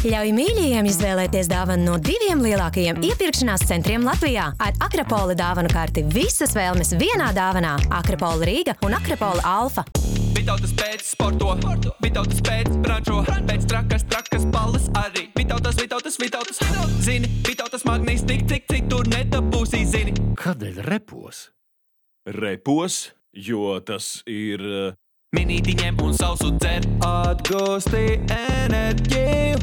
Ļauj mīļajiem izvēlēties dāvanu no 2 lielākajiem iepirkšanās centriem Latvijā. Ar Akrapola dāvanu karti visas vēlmes vienā dāvanā. Akrapola Rīga un Akrapola Alfa. Vitautas pēc sporto, Vitautas pēc brančo, pēc trakas balles arī. Vitautas. Zini, Vitautas magnīs cik tur nedabūsī, zini. Kādēļ repos? Repos, jo tas ir... Minīti ņem un sausu dzer, atgūsti enerģiju.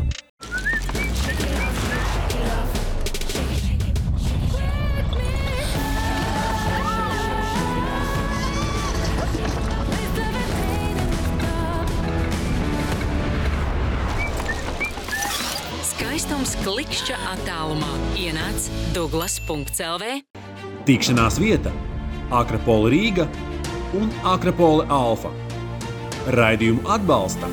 Skaistums klikšķa attālumā. Ienāc Douglas.lv. Tikšanās vieta Akrapola Rīga un Akrapola Alfa. Raidījumu atbalsta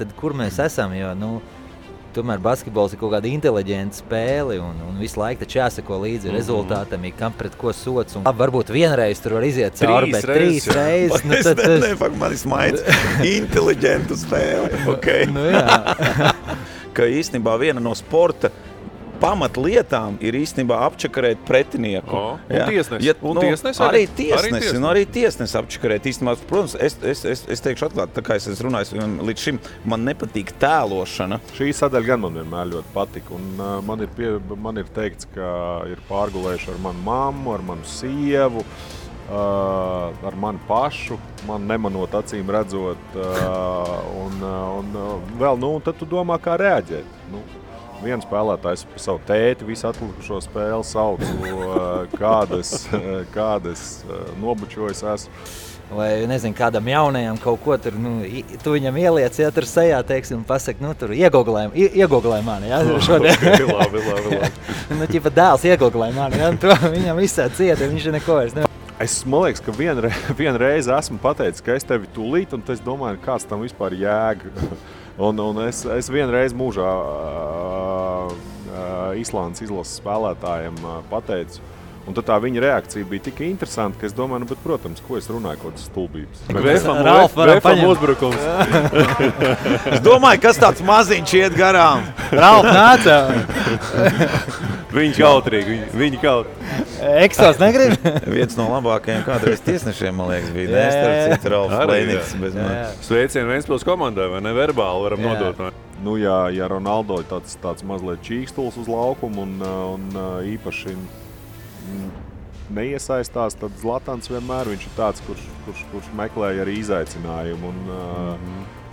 Tad kur mēs esam, jo, tomēr basketbols ir kaut kāda inteliģenta spēle un visu laiku taču jāsako līdzi rezultātam, kam pret ko sots. Un varbūt vienreiz tur var iziet cauri, bet 3 reizes. Man ir smaids. Inteliģenta spēle. Okay. Jā. Ka īstenībā viena no sporta pamatlietām ir īstenībā apčakarēt pretinieku. Arī tiesnesi apčakarēt. Īstenībā, protams, es teikšu atklāt, tā kā es runāju, līdz šim man nepatīk tēlošana. Šī sadaļa gan man vienmēr ļoti patika. Un man ir teikts, ka ir pārgulējuši ar manu mammu, ar manu sievu, ar mani pašu, man nemanot acīm redzot. Un vēl, tad tu domā, kā reaģēt. Viens spēlētājs par savu tēti visu atlikušo spēli sauc, kādas nobučojas esmu. Vai, nezinu, kādam jaunajam kaut ko tur, tu viņam ieliec, ja tur sejā, teiksim, un pasaka, tur iegoglē mani, ja, šodien. Okay, labi. Ķipa dēls iegoglē mani, ja, to viņam visā cieta, viņš neko vairs nevar. Man liekas, ka vienreiz esmu pateicis, ka es tevi tūlīt, un es domāju, kāds tam vispār jēga. Un es vienreiz mūžā Islandes izlases spēlētājiem pateicu, un tad tā viņa reakcija bija tik interesanta, ka es domāju, bet, protams, ko es runāju, kaut kādas stulbības. Ralf uzbrukums. Es domāju, kas tāds maziņš iet garām. Ralf nāca. Viņi kautrīgi, viņi kautrīgi. Eksos negrib? Viens no labākajiem kādreiz tiesnešiem, man liekas, bija nestarp citu Ralfs Lēniks bez man. Sveicienu Ventspils komandai, vai ne? Verbāli varam nodot. Ja Ronaldo ir tāds mazliet čīkstuls uz laukumu un īpaši neiesaistās, tad Zlatans vienmēr viņš ir tāds, kurš meklēja arī izaicinājumu un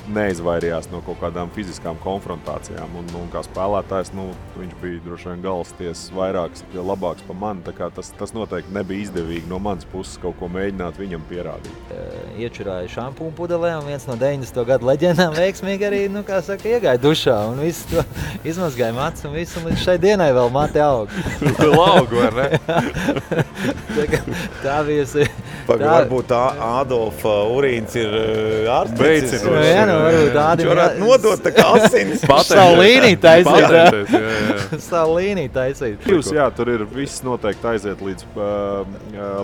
neizvairījās no kaut kādām fiziskām konfrontācijām. Un kā spēlētājs, viņš bija droši vien galvas tiesas vairāks, labāks par mani, tā kā tas noteikti nebija izdevīgi no manas puses kaut ko mēģināt viņam pierādīt. Iečurāja šampūnu pudelē, un viens no 90. gadu leģendām veiksmīgi arī, iegāja dušā, un visu to izmazgāja mats, un visu, un līdz šai dienai vēl mati aug. Laugu, vai ne? Tā bijusi. Varbūt Ādolfa urīns ir ārstnicis. Varbūt Viņš varētu nodot tā kā asinis. Savu līniju taisīt. Savu līniju taisīt. Tur ir viss noteikti aiziet līdz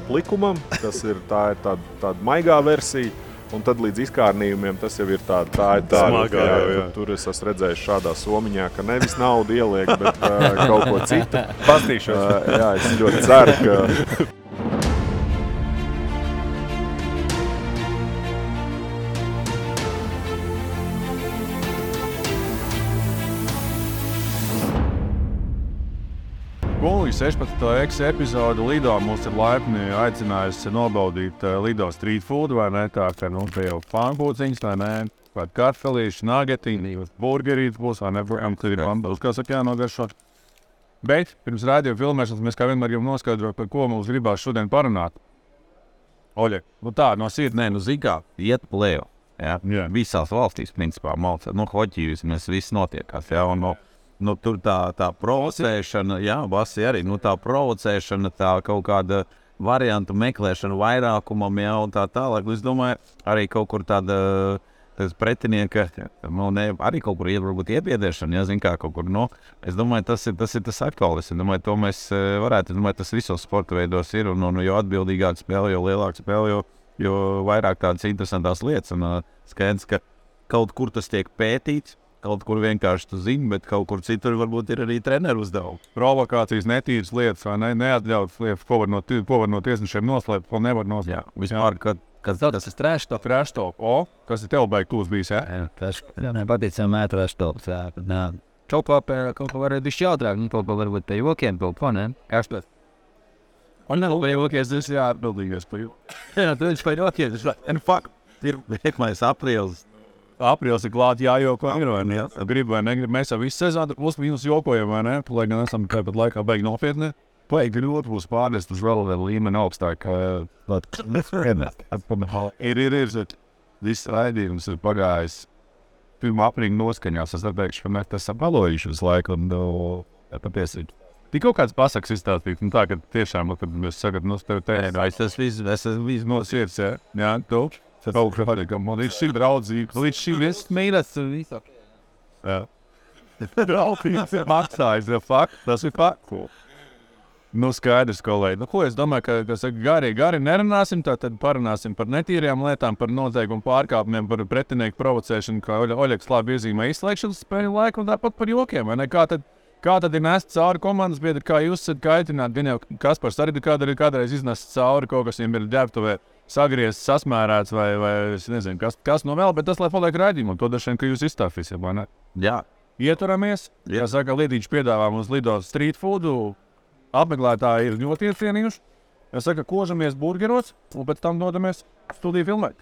plikumam, tas ir tāda maigā versija. Un tad līdz izkārnījumiem tas jau ir tāda smagā. Tur es esmu redzējis šādā somiņā, ka nevis naudu ieliek, bet kaut ko citu. Pastīšos. Jā, es ļoti ceru, ka... Gulīgi 16. epizodu Lido mūs ir laipni aicinājusi nobaudīt Lido street food, vai ne? Tā, ka, te jau pankūciņas, vai ne? Pat kartfelīši, nagetiņi, burgerīti būs, vai ne? Tur ir bambus, kā saka, jānogaršot. Bet pirms rādījuma filmēšanas mēs kā vienmēr gribam noskaidrot, par ko mums gribās šodien parunāt. Oļe, tā, no sirds, zikā, iet plēju. Ja? Visās valstīs, principā, hoķī mēs viss notiekās, ja? Un, tur tā provocēšana, Basi arī, tā provocēšana, tā kaut kāda variantu meklēšana vairākumam, un tā tālāk. Es domāju, arī kaut kur tāda tas pretinieka, arī kaut kur varbūt iebiedēšana, ja, zin kā kaut kur, es domāju, tas ir tas aktuālis. Es domāju, to mēs varētu, tas visos sporta veidos ir, un jo atbildīgāk spēle, jo lielāk spēle, jo vairāk tādas interesantās lietas. Un skaidrs, ka kaut kur tas tiek pētīts, kaut kur vienkārši tu zini, bet kaut kur citur varbūt ir arī treneru uzdevumi. Provokācijas, netīras lietas, vai ne, neatļautas lietas, ko var no tiesnešiem noslēpt, ko nevar noslēpt. Jā, vispār, kas tas ir trash talk. Trash talk. Kas ir tev baigi tūs bijis, jā? Jā, patīcam trash talk. Kaut ko var bišķi jautrāk, kaut ko varbūt pie jokiem, kaut ko, ne? Kāpēc? Un pie jokies, tas jāatbildīgais pie jokiem. Jā, tu viņš pie jokies. And fuck, ir vienmais aprīlis. Aprīlis ir klāt jājoko, grib vai negrib. Mēs jau visu sezonu plus mīnus jokojam, vai ne? Lai gan esam tāpat laikā beigi nopietni. Baigi ļoti būs pārnest uz vēl līmeni augstāk. Ir. Viss raidījums ir pagājis. Pirmā aprīļa noskaņās. Es teikšu, ka mēs tas esam palojuši uz laiku. Patiesi. Tik kaut kāds pasaks izstāstīt. Tā, ka tiešām, kad mēs sakat, tev tas viss no sirds, jā? Jā, tu? Man ir šī draudzība, līdz šī viss mīlas visu. Jā. Draudzīgs ir maksājis, tas ir fakts. Skaidrs, kolēģi. Ko es domāju, ka gari nerunāsim, tad parunāsim par netīrajām lietām, par noteikumu pārkāpumiem, par pretinieku provocēšanu, kā Oļegs labi iezīmē izslēgšanas spēļu laiku un tāpat par jokiem, vai ne? Kā tad ir nest cauri komandas biedri, kā jūs esat kaitināti? Gan jau Kaspars arī kādreiz iznest cauri, kaut kas viņam ir ģērbtuvē sagriezts, sasmērēts vai es nezinu, kas no vēl, bet tas, lai paliek raidījumu, to dažiem, ka jūs izstāfīsiet, vai ne? Jā. Ieturamies, kā saka, Lidīši piedāvā mums Lido street foodu, apmeklētāji ir ļoti iecienījuši. Es saka, kožamies burgeros un pēc tam dodamies studiju filmēt.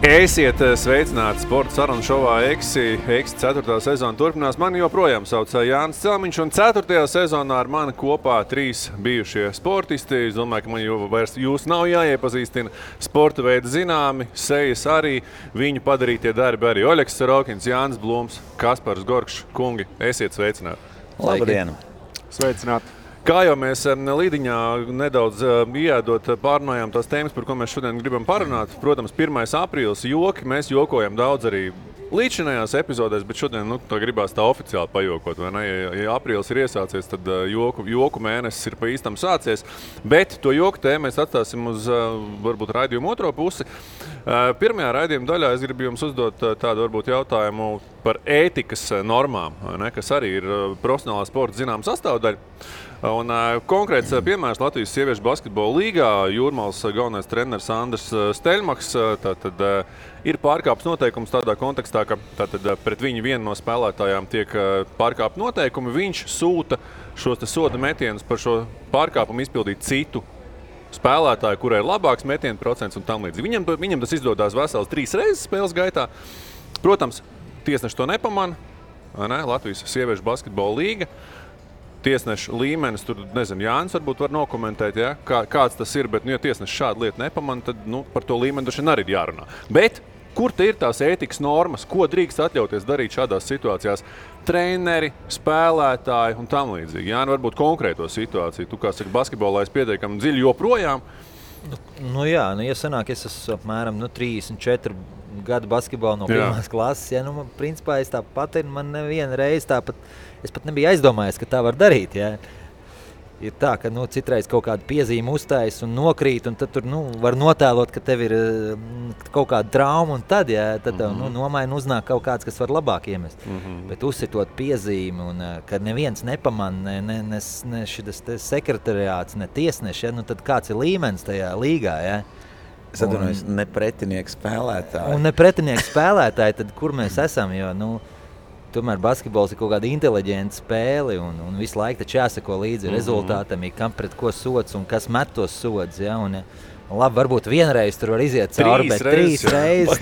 Esiet sveicināti sporta sarunu šovā Eksi 4. sezona turpinās. Mani joprojām sauc Jānis Celmiņš, un 4. sezonā ar mani kopā 3 bijušie sportisti. Es domāju, ka man jau vairs jūs nav jāiepazīstina. Sporta veidi zināmi, sejas arī, viņu padarītie darbi arī Oļegs Sarokins, Jānis Blūms, Kaspars Gorkšs. Kungi, esiet sveicināti. Labdien! Sveicināti! Kā jau mēs Līdiņā nedaudz ieēdot pārunājām tās tēmas, par ko mēs šodien gribam parunāt. Protams, 1. aprīlis joki, mēs jokojam daudz arī līdzinājās epizodēs, bet šodien tā gribās tā oficiāli pajokot, vai ne? Ja aprīlis ir iesācies, tad joku mēnesis ir pa īstam sācies, bet to joku tēmu mēs atstāsim uz varbūt raidījumu otro pusi. Pirmajā raidījuma daļā es gribu jums uzdot tādu varbūt jautājumu par ētikas normām, ne? Kas arī ir profesionālā sporta zināma sastāvdaļa. Un konkrēts piemērs Latvijas sieviešu basketbola līgā. Jūrmālas galvenais treneris Andris Steļmaks tātad ir pārkāpts noteikums tādā kontekstā, ka tātad pret viņu vienu no spēlētājām tiek pārkāpt noteikumi. Viņš sūta šos soda metienus par šo pārkāpumu izpildīt citu spēlētāju, kurai ir labāks metienu procents un tam līdz. Viņam tas izdodās vesels 3 reizes spēles gaitā. Protams, tiesneši to nepamana, ne? Latvijas sieviešu basketbola līga. Tiesneša līmenis, tur, nezinu, Jānis varbūt var nokomentēt, ja? Kāds tas ir, bet, ja tiesneši šādu lietu nepamana, tad, par to līmeni droši vien arī ir jārunā. Bet, kur te ir tās ētikas normas, ko drīkst atļauties darīt šādās situācijās? Treneri, spēlētāji un tam līdzīgi. Jāni, varbūt konkrēto situāciju. Tu, kā saka, basketbolā es pietiekami dziļi joprojām. Ja sanāk, es esmu apmēram 34 gadu basketbolu no pirmās klases, principā es tāpat man nevienu reizi tāpat, es pat nebiju aizdomājies, ka tā var darīt, Ir tā, ka, citreiz kaut kādu piezīmi uztājas un nokrīt, un tad tur, var notēlot, ka tev ir kaut kāda trauma, un tad, tev, nomaina uznāk kaut kāds, kas var labāk iemest. Bet uzsitot piezīmi, un ka neviens nepamana, ne šis sekretariāts, ne tiesneši, tad kāds ir līmenis tajā līgā, Es atvainojos, ne pretinieki spēlētāji. Un ne pretinieki spēlētāji, tad kur mēs esam, jo, tomēr basketbols ir kaut kāda inteliģenta spēle, un visu laiku taču jāsako līdzi rezultātam, kam pret ko sods un kas met tos sods, un labi, varbūt vienreiz tur var iziet cauri, bet 3 reizes.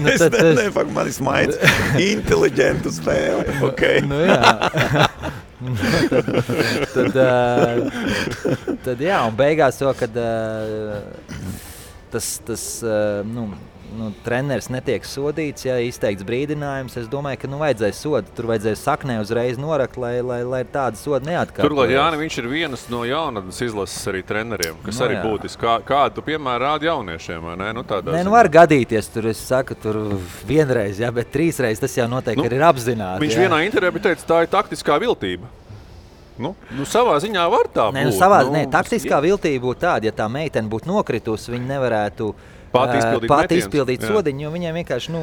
Man ir smaids. Inteliģentu spēle, ok. Tad un beigās to, kad tas treneris netiek sodīts, ja izteikts brīdinājums, es domāju, ka vajadzēja sodu. Tur vajadzēja saknē uzreiz norakt, lai tāda soda neatkārtojas. Turklāt Jāni, viņš ir vienas no jaunatnes izlases arī treneriem, kas arī būtiski. Kādu tu, piemēram, rādi jauniešiem, vai ne? Var gadīties, tur es saku, tur vienreiz, bet 3 reizes tas jau noteikti ir apzināti. Viņš vienā intervijā bija teicis, tā ir taktiskā viltība. Savā ziņā var tā būt. Taktiskā viltība būtu tāda, ja tā meitene būtu nokritusi, viņa nevarētu pati izpildīt sodiņu, jo viņiem vienkārši,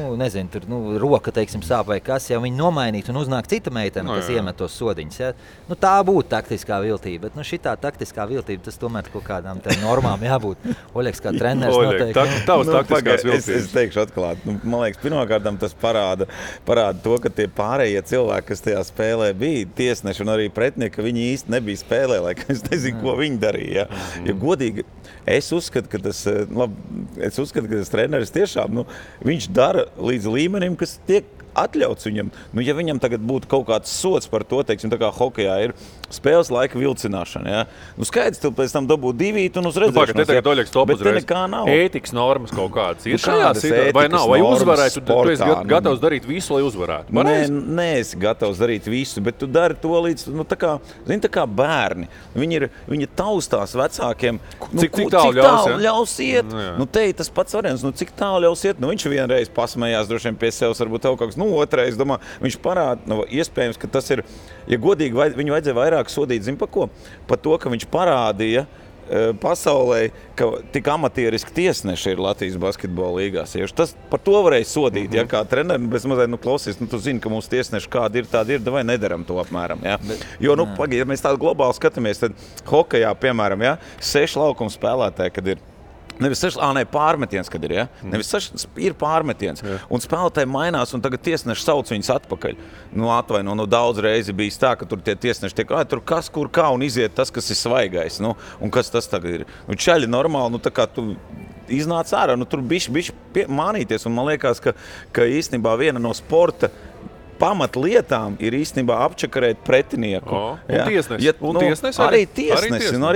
tur roka, teiksim, sāp vai kas, ja viņi nomainītu un uznāk cita meitene, kas iemet tos sodiņus. Ja? Tā būtu taktiskā viltība, bet šitā taktiskā viltība, tas tomēr kaut kādām normām jābūt. Oļeks kā treneris noteikti. Tavs taktiskās viltības. Es teikšu atklāt. Man liekas, pirmkārt tas parāda to, ka tie pārējie cilvēki, kas tajā spēlē bija tiesneši un arī pretinieki, viņi īsti nebija spēlē, lai es nezinu, ko viņi darīja. Ja godīgi, es uzskatu, ka tas treneris tiešām, viņš dara līdz līmenim, kas tiek atļauts viņam. Ja viņam tagad būtu kaut kāds sots par to, teiksim, tā kā hokejā ir spēles laika vilcināšana, ja? Skaidrs, tu pēc tam dabū 2 un uz redzēšanos. Te tagad Oļeks top uzreiz. Bet te nekā nav. Ētikas normas kaut kādas ir šajā situācijā, vai nav? Vai uzvarētu, tu esi gatavs darīt visu, lai uzvarētu? Nē, esi gatavs darīt visu, bet tu dari to līdz, tā kā bērni. Viņi taustās vecākiem. Cik tālu ļaus iet? Te ir tas pats variants. Cik tālu ļaus iet? Viņš vienreiz pasmējās droši vien pie sevis, varbūt tev kaut kāds, otrais, domā, viņš parāda, iespējams, ka tas ir, ja godīgi, viņu vajadzēja vairāk sodīt, zin pa ko? Pa to, ka viņš parādīja pasaulē, ka tik amatieriski tiesneši ir Latvijas basketbola līgās. Tas par to varēja sodīt, ja kā treneri, bez mazliet, klausies, tu zini, ka mūsu tiesneši kādi ir, tādi ir, vai nedaram to apmēram, ja? Jo, ja mēs tādu globāli skatāmies, tad hokejā, piemēram, 6 laukuma spēlētāji, kad ir pārmetiens, kad ir, ja? Nevis ir pārmetiens. Un spēlētāji mainās, un tagad tiesneši sauc viņus atpakaļ. Daudz reizi bijis tā, ka tur tie tiesneši tiek, tur kas, kur, kā, un iziet tas, kas ir svaigais. Un kas tas tagad ir? Čaļi normāli, tā kā tu iznāc ārā, tur bišķi mānīties, un man liekas, ka īstenībā viena no sporta pamatlietām ir īstenībā apčakarēt pretinieku. Arī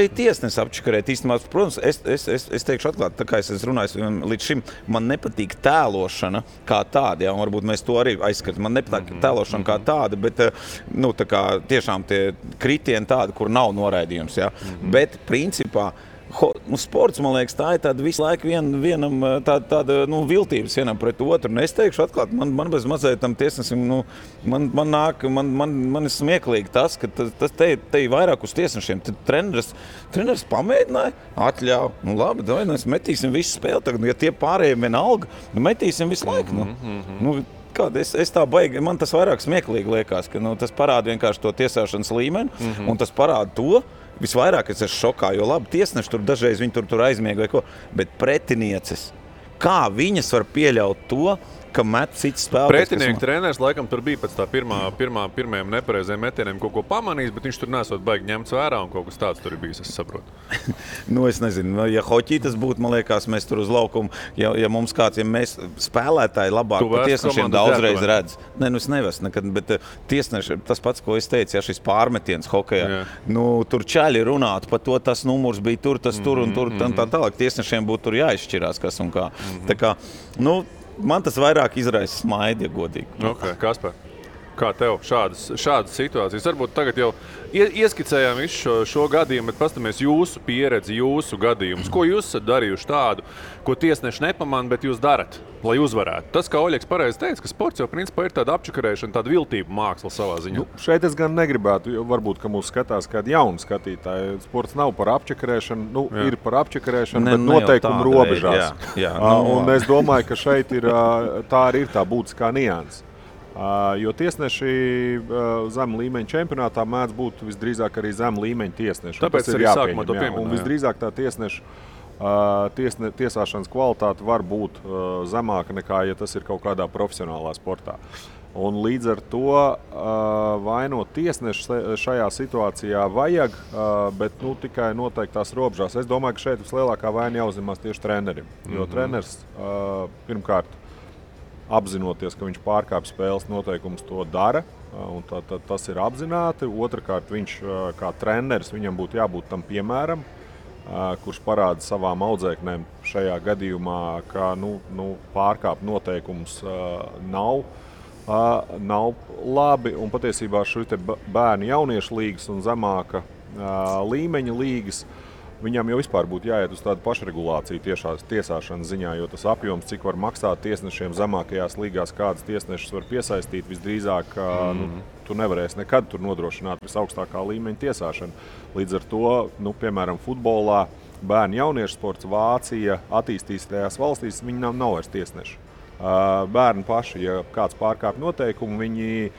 tiesnesi apčakarēt. Īstenībā, protams, es teikšu atklāt, tā kā es runāju, līdz šim man nepatīk tēlošana kā tāda, un varbūt mēs to arī aizskatām. Man nepatīk tēlošana kā tāda, bet tā kā tiešām tie kritieni tādi, kur nav noraidījums. Bet principā sports, man liekas, tā ir tāda visu laiku vienam tāda viltības vienam pret otru. Un es teikšu atklāt, man bez mazliet tam tiesnesim, man ir smieklīgi tas, ka tas te ir vairāk uz tiesnešiem. Tad treneris pamēģināja, atļauj, labi, mēs metīsim visu spēli tagad, ja tie pārējiem vienalga, metīsim visu laiku. Es tā baigi, man tas vairāk smieklīgi liekas, ka tas parāda vienkārši to tiesāšanas līmeni, un tas parāda to, visvairāk es esmu šokā, jo labi, tiesneši tur dažreiz viņi tur aizmiega vai ko, bet pretinieces, kā viņas var pieļaut to, ka met cits spēlētājs. Pretinieku treneris laikam tur bija pēc tā pirmajiem nepareizajiem metieniem kaut ko pamanījis, bet viņš tur nesot baigi ņemts vērā un kaut kas tāds tur ir bijis, es saprotu. Es nezinu, ja hoķī tas būtu, man liekas, mēs tur uz laukumu, ja mums kāds, ja mēs spēlētāji labāk pa tiesnešiem daudzreiz redz. Es nevaru nekad, bet tiesneši, tas pats, ko es teicu, šis pārmetiens hokejā, tur čaļi runāt par to, tas numurs bija tur, tas tur un tur, tā tālāk tiesnešiem būtu tur jāizšķirās, kas un kā. Tā kā, man tas vairāk izraisa smaidi, ja godīgi. Kaspar, kā tev šādas situācijas? Varbūt tagad jau ieskicējām visu šo gadījumu, bet pastamies jūsu pieredzi, jūsu gadījumus. Ko jūs esat darījuši tādu, ko tiesneši nepamana, bet jūs darat, lai uzvarētu? Tas, kā Oļeks pareizi teica, ka sports jau principā ir tāda apčakarēšana, tāda viltība māksla savā ziņā. Šeit es gan negribētu, jo varbūt, ka mūs skatās kādi jauni skatītāji. Sports nav par apčakarēšanu, ir par apčakarēšanu, bet noteikumu robežās. Un es domāju, ka šeit ir tā arī ir tā būtiskā nianse. Jo tiesneši zem līmeņa čempionātā mēdz būt visdrīzāk arī zem līmeņa tiesneši. Tāpēc arī sākumā to pieminēju. Un visdrīzāk tā tiesāšanas kvalitāte var būt zemāka nekā, ja tas ir kaut kādā profesionālā sportā. Un līdz ar to vainot tiesneši šajā situācijā vajag, bet tikai noteiktās robežās. Es domāju, ka šeit vislielākā vaina jāuzņemās tieši trenerim. Jo treneris pirmkārt apzinoties, ka viņš pārkāpj spēles noteikumus, to dara, un tas ir apzināti. Otrakārt, viņš kā treneris, viņam būtu jābūt tam piemēram, kurš parāda savām audzēknēm šajā gadījumā, ka pārkāpt noteikumus nav labi. Un patiesībā šī bērnu jauniešu līgas un zemāka līmeņa līgas, viņam jau vispār būtu jāiet uz tādu pašregulāciju tiesāšanas ziņā, jo tas apjoms, cik var maksāt tiesnešiem zemākajās līgās, kādas tiesnešus var piesaistīt, visdrīzāk tu nevarēsi nekad tur nodrošināt visaugstākā līmeņa tiesāšanu. Līdz ar to, piemēram, futbolā, bērnu jauniešu sports, Vācija, attīstītajās valstīs, viņi nav vairs tiesneši. Bērni paši, ja kāds pārkāpj noteikumu, viņi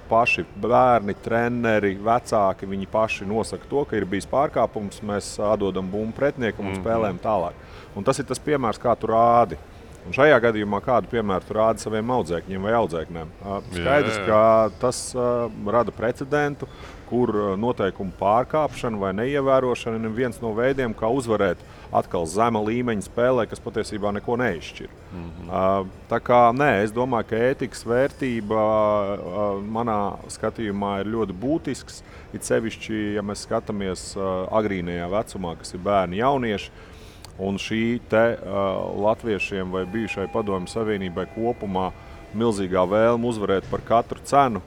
paši bērni, treneri, vecāki, viņi paši nosaka to, ka ir bijis pārkāpums, mēs atdodam bumbu pretiniekam un spēlējam tālāk. Un tas ir tas piemērs, kā tu rādi. Un šajā gadījumā kādu piemēru tu rādi saviem audzēkņiem vai audzēkņiem. Skaidrs, ka tas rada precedentu, kur noteikumu pārkāpšana vai neievērošana ir viens no veidiem, kā uzvarēt atkal zema līmeņa spēlē, kas patiesībā neko neizšķir. Tā kā es domāju, ka ētikas vērtība manā skatījumā ir ļoti būtisks. It sevišķi, ja mēs skatāmies agrīnajā vecumā, kas ir bērni jaunieši, un šī latviešiem vai bijušai Padomju Savienībai kopumā milzīgā vēlme uzvarēt par katru cenu,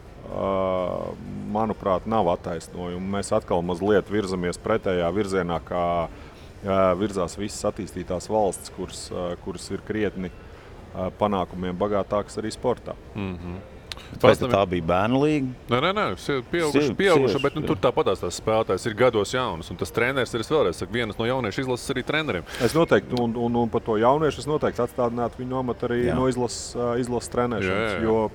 manuprāt, nav attaisnojuma. Mēs atkal mazliet virzamies pretējā virzienā, kā virzās visas attīstītās valstis, kuras ir krietni panākumiem bagātākas arī sportā. Vai tā bija bērnu līga? Nē, pieauguši, bet tur tāpatās tās spēlētājs ir gados jaunas, un tas treneris ir, es vēlreiz saku, vienas no jauniešu izlases arī treneriem. Es noteikti, un par to jauniešu es noteikti atstādinātu viņu amatu arī no izlases trenēšanas, jo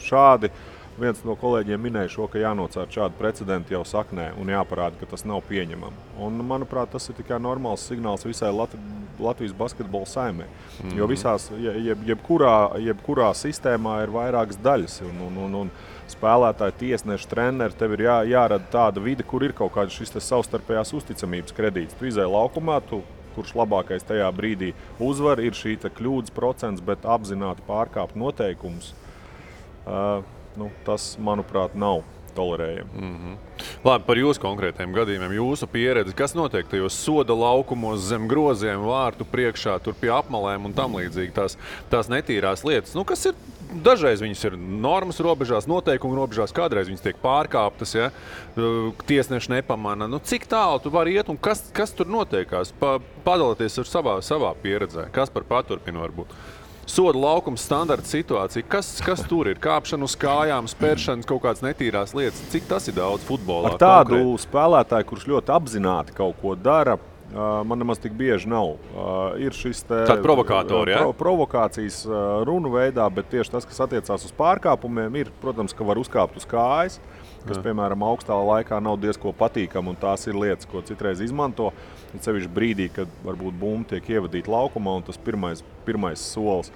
šādi viens no kolēģiem minēja šo, ka jānocērt šādu precedentu jau saknē un jāparāda, ka tas nav pieņemami. Un, manuprāt, tas ir tikai normāls signāls visai Latvijas basketbola saimē. Jo visās, jebkurā sistēmā ir vairākas daļas. Un spēlētāji, tiesneši, treneri, tev ir jārada tāda vide, kur ir kaut kāds šis savstarpējās uzticamības kredīts. Tu izēji laukumā, kurš labākais tajā brīdī uzvar, ir šī kļūdas procents, bet apzināti pārkāpt noteikumus. Tas, manuprāt, nav tolerējami. Labi, par jūsu konkrētiem gadījumiem, jūsu pieredzi, kas notiek tajos soda laukumos zem groziem, vārtu priekšā, tur pie apmalēm un tam līdzīgi tās netīrās lietas, kas ir, dažreiz viņas ir normas robežās, noteikumu robežās, kādreiz viņas tiek pārkāptas, ja? Tiesneši nepamana. Cik tālu tu vari iet un kas tur notiekās? Padalieties ar savā pieredzē, kas par paturpinu varbūt? Soda laukums, standarta situācija. Kas tur ir? Kāpšana uz kājām, spēršana, kaut kādas netīrās lietas. Cik tas ir daudz futbolā? Ar tādu spēlētāju, kurš ļoti apzināti kaut ko dara, man nemaz tik bieži nav. Ir šis tāda provokātori, ja? Provokācijas runu veidā, bet tieši tas, kas attiecās uz pārkāpumiem, ir, protams, ka var uzkāpt uz kājas, kas, piemēram, augstā laikā nav diezko patīkami, un tās ir lietas, ko citreiz izmanto. Sevišķi brīdī, kad varbūt bumba tiek ievadīta laukumā, un tas pirmais solis.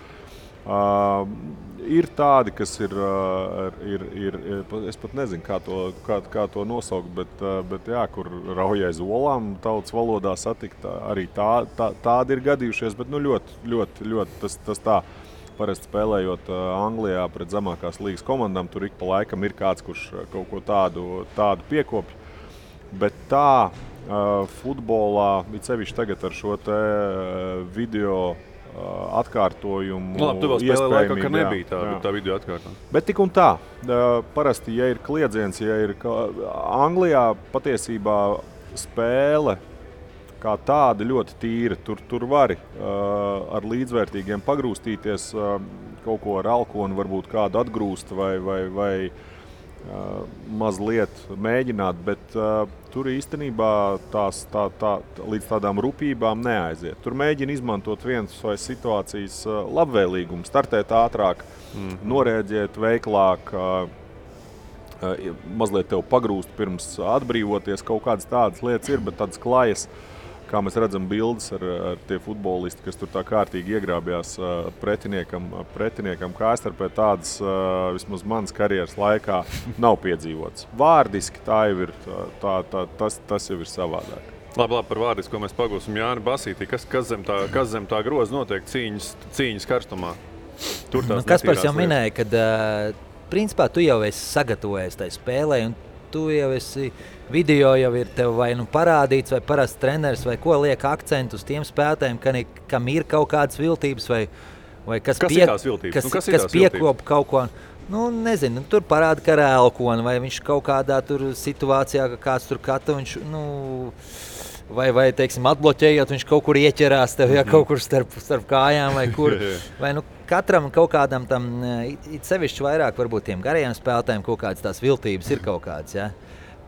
Ir tādi, kas ir es pat nezinu, kā to nosaukt, bet jā, kur rauj aiz olām tautas valodā satikt, arī tādi ir gadījušies, bet ļoti tas tā. Parasti spēlējot Anglijā pret zemākās līgas komandām, tur ik pa laikam ir kāds, kurš kaut ko tādu piekopj. Bet tā futbolā, it sevišķi tagad ar šo video atkārtojumu. Labi, tu vēl spēlē laikā, ka nebija tā video atkārtojuma. Bet tik un tā. Parasti, ja ir kliedziens, Anglijā patiesībā spēle kā tāda ļoti tīra. Tur vari ar līdzvērtīgiem pagrūstīties, kaut ko ar alkonu varbūt kādu atgrūst vai mazliet mēģināt, bet tur īstenībā līdz tādām rupībām neaiziet. Tur mēģina izmantot vienas vai situācijas labvēlīgumu, startēt ātrāk, norēģēt veiklāk, mazliet tev pagrūst pirms atbrīvoties. Kaut kādas tādas lietas ir, bet tādas klajas, kā mēs redzam bildes ar tie futbolisti, kas tur tā kārtīgi iegrābjās pretiniekam kājstarpē, tādas vismaz manas karjeras laikā nav piedzīvots. Vārdiski tā jau ir, tas jau ir savādāk. Labi, par vārdiski, ko mēs pagūsim Jāni Basītī. Kas zem tā groza notiek cīņas karstumā? Kaspars jau minēja, ka principā tu jau esi sagatavojies tai spēlē, un tu jau esi video jau ir tev vai parādīts, vai parasts treneris, vai ko liek akcentu uz tiem spēlētājiem, kam ir kaut kādas viltības, vai kas piekop kaut ko. Nezinu, tur parāda, ka ar elkonu, vai viņš kaut kādā tur situācijā, ka kāds tur kata, viņš, vai teiksim, atbloķējot, viņš kaut kur ieķerās tev, kaut kur starp kājām, vai kur. Vai, katram kaut kādam tam, it sevišķi vairāk varbūt tiem garajiem spēlētājiem kaut kādas tās viltības ir kaut kādas, ja.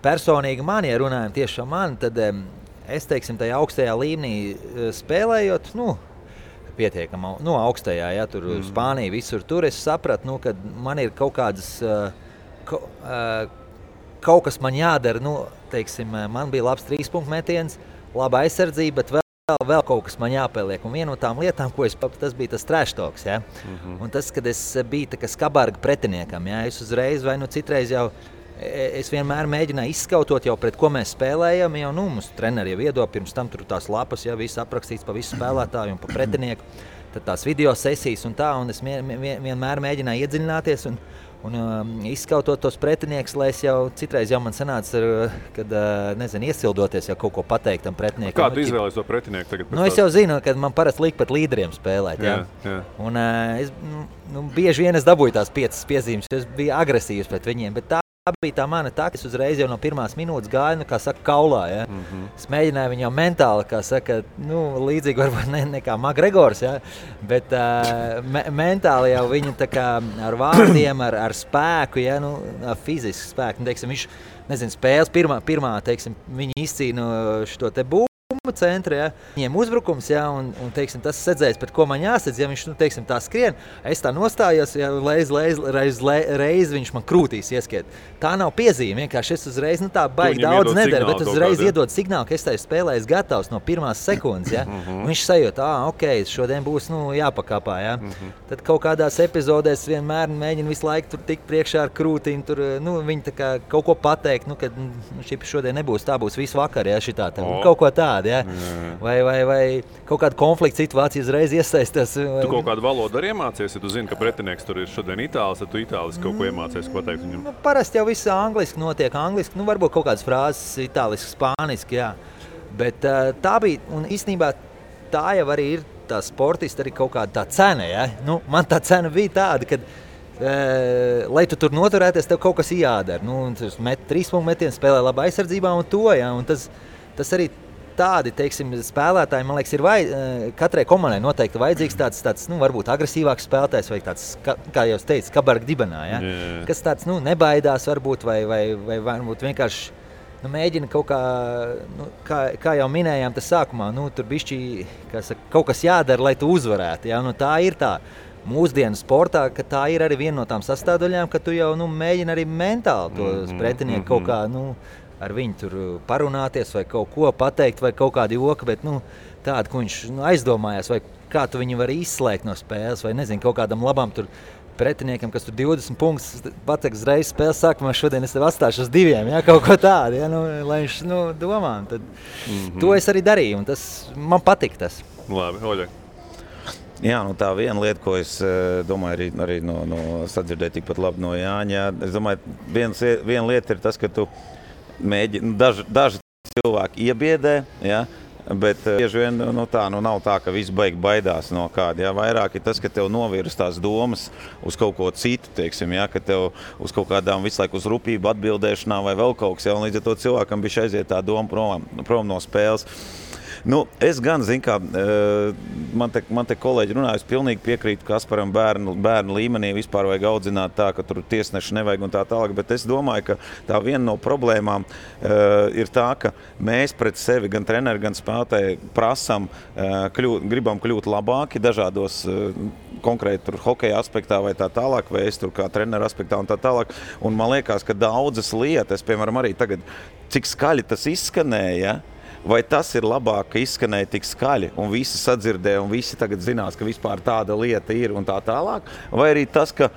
Personīgi man, ja runājam tieši ar mani, tad es, teiksim, tajā augstajā līmenī spēlējot, pietiekam, augstajā, ja, tur Spānija, visur tur, es sapratu, ka man ir kaut kādas, kaut kas man jādara, teiksim, man bija labs 3-punktu metiens, laba aizsardzība, bet vēl kaut kas man jāpieliek. Un viena no tām lietām, ko tas bija tas trash talks, ja. Un tas, kad es biju tā kā skabarga pretiniekam, ja, es uzreiz vai citreiz jau, es vienmēr mēģināju izskautot jau pret ko mēs spēlējam, jau, mums treneri jau iedod, pirms tam tur tās lapas, ja, viss aprakstīts pa visu spēlētāju un pa pretinieku, tad tās video sesijas un tā, un es vienmēr mēģināju iedziļināties un izskautot tos pretinieks, lai es jau citreiz jau man sanāca, kad, nezinu, iesildoties jau kaut ko pateikt tam pretiniekam. Kā tu izvēlies to pretinieku tagad? Es jau zinu, kad man parasti liek pat līderiem spēlēt, jā. Un es, bieži vien es dabūju tās 5 piezīmes, es biju agresīvs pret viņiem, bet tā bija tā mana taktika. Es uzreiz jau no pirmās minūtes gāju, kā saka, kaulā, ja. Es mēģināju viņu jau mentāli, kā saka, līdzīgi varbūt ne kā Makgregors, ja, bet mentāli jau viņu tā kā ar vārdiem, ar spēku, ja, ar fizisku spēku. Teiksim, viņš, nezinu, spēles pirmā, teiksim, viņi izcīna šo te bumbu centru, ja. Viņiem uzbrukums, ja, un teiksim, tas sedzējis, pret ko man jāsedz, ja viņš, teiksim, tā skrien, es tā nostājos, ja, reiz viņš man krūtīs ieskiet. Tā nav piezīme, vienkārši es uzreiz, tā baigi daudz nedara, bet uzreiz iedod signālu, ka es tai spēlēju gatavs no pirmās sekundes, ja. Viņš sajūt, ok, šodien būs, jāpakāpā, ja. Tad kaut kādās epizodēs vienmēr mēģina visu laiku tur tikt priekšā ar krūtīm, tur, viņi tā kā kaut ko pateikt, kad šodien nebūs, tā būs visu vakar, ja, šitā, kaut ko tādu, ja. Vai kaut kāda konflikta situācija uzreiz iesaistās. Tu kaut kādu valodu arī iemācies, ja tu zini, ka pretinieks tur ir šodien itālis, tad tu itāliski kaut ko iemācies, ko pateikt viņam? Parasti jau viss angliski notiek, angliski, varbūt kaut kādas frāzes itāliski, spāniski, jā. Bet tā bija, un īstenībā tā jau arī ir tā sportista, arī kaut kāda tā cena, ja. Man tā cena bija tāda, kad lai tu tur noturēties, tev kaut kas jādara. Tu met 3-punktu metienu, spēlē labā aizsardzībā un to, ja. Un tas arī tādi, teiksim, spēlētāji, man liekas, ir katrai komandai noteikti vajadzīgs tāds varbūt agresīvāks spēlētājs vai tāds, kā jau es teicu, kabarga dibenā, ja? Kas tāds, nebaidās varbūt vai varbūt vienkārši mēģina kaut kā jau minējām tas sākumā, tur bišķi, kaut kas jādara, lai tu uzvarētu, ja? Tā ir tā mūsdienu sportā, ka tā ir arī viena no tām sastāvdaļām, ka tu jau mēģini arī mentāli tos pretinieku kaut kā, ar viņu tur parunāties vai kaut ko pateikt vai kaut kādu joku, bet tādu, ko viņš aizdomājās, vai kā tu viņu vari izslēgt no spēles, vai nezinu, kaut kādam labam tur pretiniekam, kas tur 20 punktus pateiks uzreiz spēles sākumā, šodien es tev atstāšu uz 2, ja, kaut ko tādu, ja, lai viņš domā. Tad to es arī darīju, un tas man patika tas. Labi, Oļeg. Jā, tā viena lieta, ko es domāju, arī no sadzirdēju tikpat labi no Jāņa. Es domāju, viena lieta ir tas, ka tu mēģini, daži cilvēki iebiedē, ja, bet bieži vien nav tā, ka visi baidās no kāda. Ja. Vairāk ir tas, ka tev novirs tās domas uz kaut ko citu, teiksim, ja, ka tev uz kaut kādām visu laiku uz rupību atbildēšanā vai vēl kaut kas, ja, un līdz ar to cilvēkam bija aiziet tā doma prom no spēles. Es gan, zinu, kā man te kolēģi runāja, es pilnīgi piekrītu Kasparam bērnu līmenī vispār vajag audzināt tā, ka tur tiesneši nevajag un tā tālāk, bet es domāju, ka tā viena no problēmām ir tā, ka mēs pret sevi, gan treneri, gan spēlētāji prasam, gribam kļūt labāki dažādos konkrēti tur hokeja aspektā vai tā tālāk, vai es tur kā treneru aspektā un tā tālāk, un man liekas, ka daudzas lietas, piemēram, arī tagad, cik skaļi tas izskanēja, vai tas ir labāk, ka izskanēja tik skaļi un visi sadzirdēja un visi tagad zinās, ka vispār tāda lieta ir un tā tālāk, vai arī tas, ka,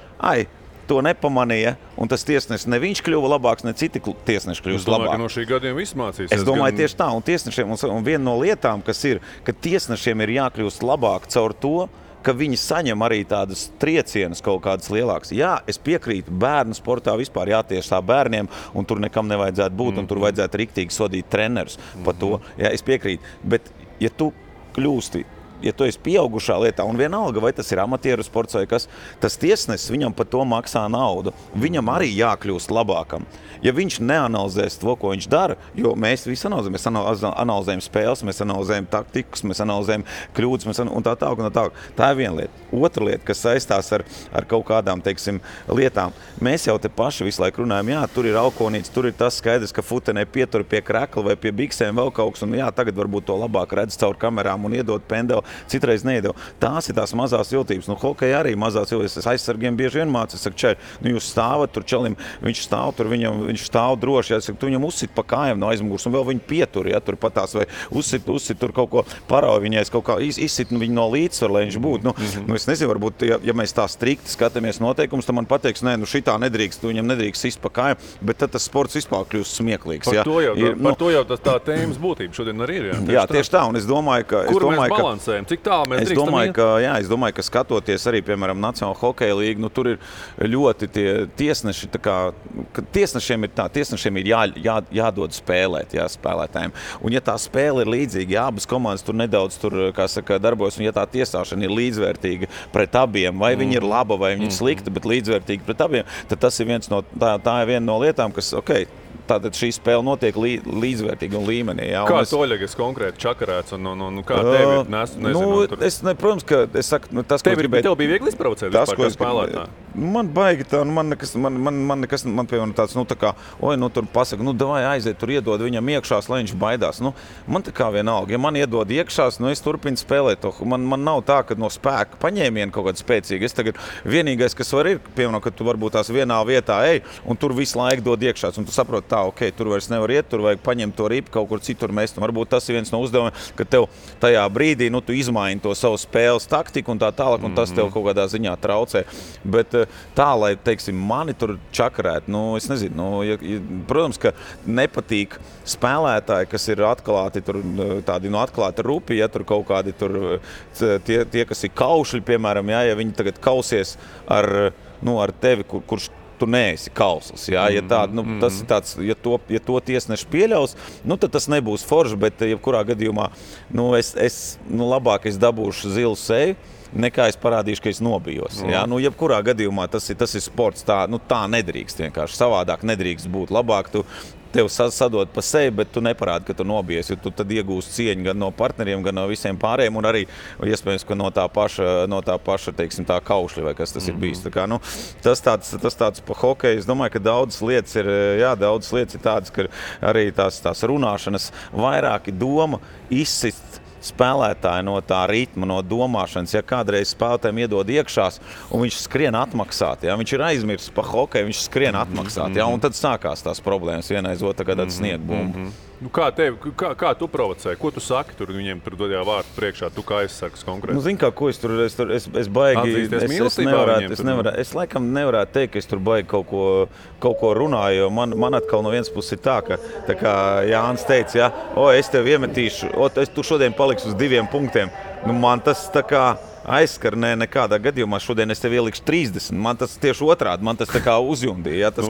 to nepamanīja un tas tiesnesis ne viņš kļuva labāks, ne citi tiesneši kļūst labāk. Es domāju, ka no šī gadiem viss mācīsies. Es domāju, tieši tā, un tiesnešiem, un viena no lietām, kas ir, ka tiesnešiem ir jākļūst labāk caur to, ka viņi saņem arī tādas triecienus kaut kādas lielākas. Jā, es piekrītu, bērnu sportā vispār jātiesā bērniem, un tur nekam nevajadzētu būt, un tur vajadzētu riktīgi sodīt trenerus par to. Jā, es piekrītu, bet ja tu kļūsti, ja tu esi pieaugušā lietā, un vienalga, vai tas ir amatieru sports vai kas, tas tiesnesis viņam par to maksā naudu. Viņam arī jākļūst labākam. Ja viņš neanalizēs to, ko viņš dara, jo mēs visi analizējam, mēs analizējam spēles, mēs analizējam taktikas, mēs analizējam kļūdas, un tā tālāk, un tā tālāk. Tā ir viena lieta. Otra lieta, kas saistās ar kaut kādām, teiksim, lietām. Mēs jau te paši visu laiku runājam, jā, tur ir alkonīts, tur ir tas skaidrs, ka futenē pietur pie krekla vai pie biksēm vēl kaut kas, un jā, tagad varbūt to labāk redz caur kamerām un iedod pendeli, citreiz neiedod. Tās ir tās mazās jūtības. Nu, hokeja arī mazās jūtības. Es aizsargiem bieži vien mācu, es saku, čeri, nu jūs stāvat tur čelim, viņš stāv tur, viņš stāv droši, ja, saku, tu viņam uzsit pa kājām no aizmugurs, un vēl viņu pietur, ja, tur patās, vai uzsit tur kaut ko parauj viņai, kaut kā izsit viņu no līdzsvaru, lai viņš būtu. Nu, es nezinu, varbūt, ja mēs tā strikti skatāmies noteikumus, tad man pateiks, nē, nu šitā nedrīkst, tu viņam nedrīkst sist pa kājām, bet tad tas sports vispār kļūst smieklīgs. Par to jau tā tēmas būtība šodien arī ir. Jā, tieši tā, un es domāju, ka... Kur mēs balansējam? Cik tālu mēs drīkstam iet? Es domāju, ka skatoties arī, piemēram, Nacionāla hokeja līga, nu tur ir ļoti tie tiesneši, tā kā, tiesnešiem ir jādod spēlēt, spēlētājiem. Un ja tā spēle ir līdzīga, ja abas komandas tur nedaudz kā saka, darbojas, un ja tā tiesāšana ir līdzvērtīga pret abiem, vai viņi ir laba, vai viņi ir slikta, bet līdzvērtīga pret abiem, tad tas ir tā ir viena no lietām, kas, tātad šī spēle notiek līdzvērtīga un līmenī. Jā, kā tu, Oļegas, konkrēti čakarēts un kā tev ir? Nezinu, protams, ka es saku, tas, ko gribēju... Tev bija viegli izprovocēt vispār kā spēlētāji? Man baigi tā, man nekas, piemēram tāds, tā kā, tur pasaka, davai aiziet, tur iedod viņam iekšās, lai viņš baidās. Man tā kā vienalga, ja man iedod iekšās, es turpinu spēlēt to. Man nav tā, ka no spēka paņēmiena kaut kāda spēcīga. Es tagad vienīgais, kas var ir, piemēram, ka tu varbūt tās vienā vietā ej, un tur visu laiku dod iekšās, un tu saproti, tur vairs nevar iet, tur vajag paņemt to ripu, kaut kur citur mest. Varbūt tas ir viens no uzdevumiem, ka tev tajā brīdī, tu izmaini to savu spēles taktiku un tā tālāk, un tas tev kaut kādā ziņā traucē. Bet tā, lai, teiksim, mani tur čakarēt, es nezinu, protams, ka nepatīk spēlētāji, kas ir atklāti, tur tādi atklāti rupi, ja tur kaut kādi tur tie kas ir kaušļi, piemēram, ja viņi tagad kausies ar tevi, kurš tu neesi kausls. Ja tas ir tāds, ja to tiesneši pieļaus, tad tas nebūs forši, bet jebkurā gadījumā labāk es dabūšu zilu seju, nekā es parādīšu, ka es nobijos. Ja? Jebkurā gadījumā tas ir sports, tā nedrīkst vienkārši, savādāk nedrīkst būt. Labāk tev sadod pa sevi, bet tu neparādi, ka tu nobijies, jo tu tad iegūsi cieņu gan no partneriem, gan no visiem pārējiem, un arī, iespējams, ka no tā paša, teiksim, tā kaušļa, vai kas tas ir bijis. Tā kā, tas tāds pa hokeju, es domāju, ka daudzas lietas ir tādas, ka arī tās runāšanas vairāki doma izsist spēlētāji no tā ritma, no domāšanas, ja kādreiz spēlētājiem iedod iekšās, un viņš skrien atmaksāt, ja viņš ir aizmirsis pa hokeju, viņš skrien atmaksāt, ja, un tad sākās tās problēmas vienaiz otru, kad sniegbumbu. Kā tu provocēji? Ko tu saki tur viņiem tur dodījā vārtu priekšā? Tu kā aizsargs konkrēti? Zini kā, ko es baigi... Es laikam nevarētu teikt, ka es tur baigi kaut ko runāju, jo man atkal no vienas puses ir tā kā Jānis teica, es tev iemetīšu, tu šodien paliksi uz 2 punktiem. Man tas tā kā aizskar, nekādā gadījumā šodien es tev ielikšu 30. Man tas tieši otrādi, man tas tā kā uzjundīja. Ja, tas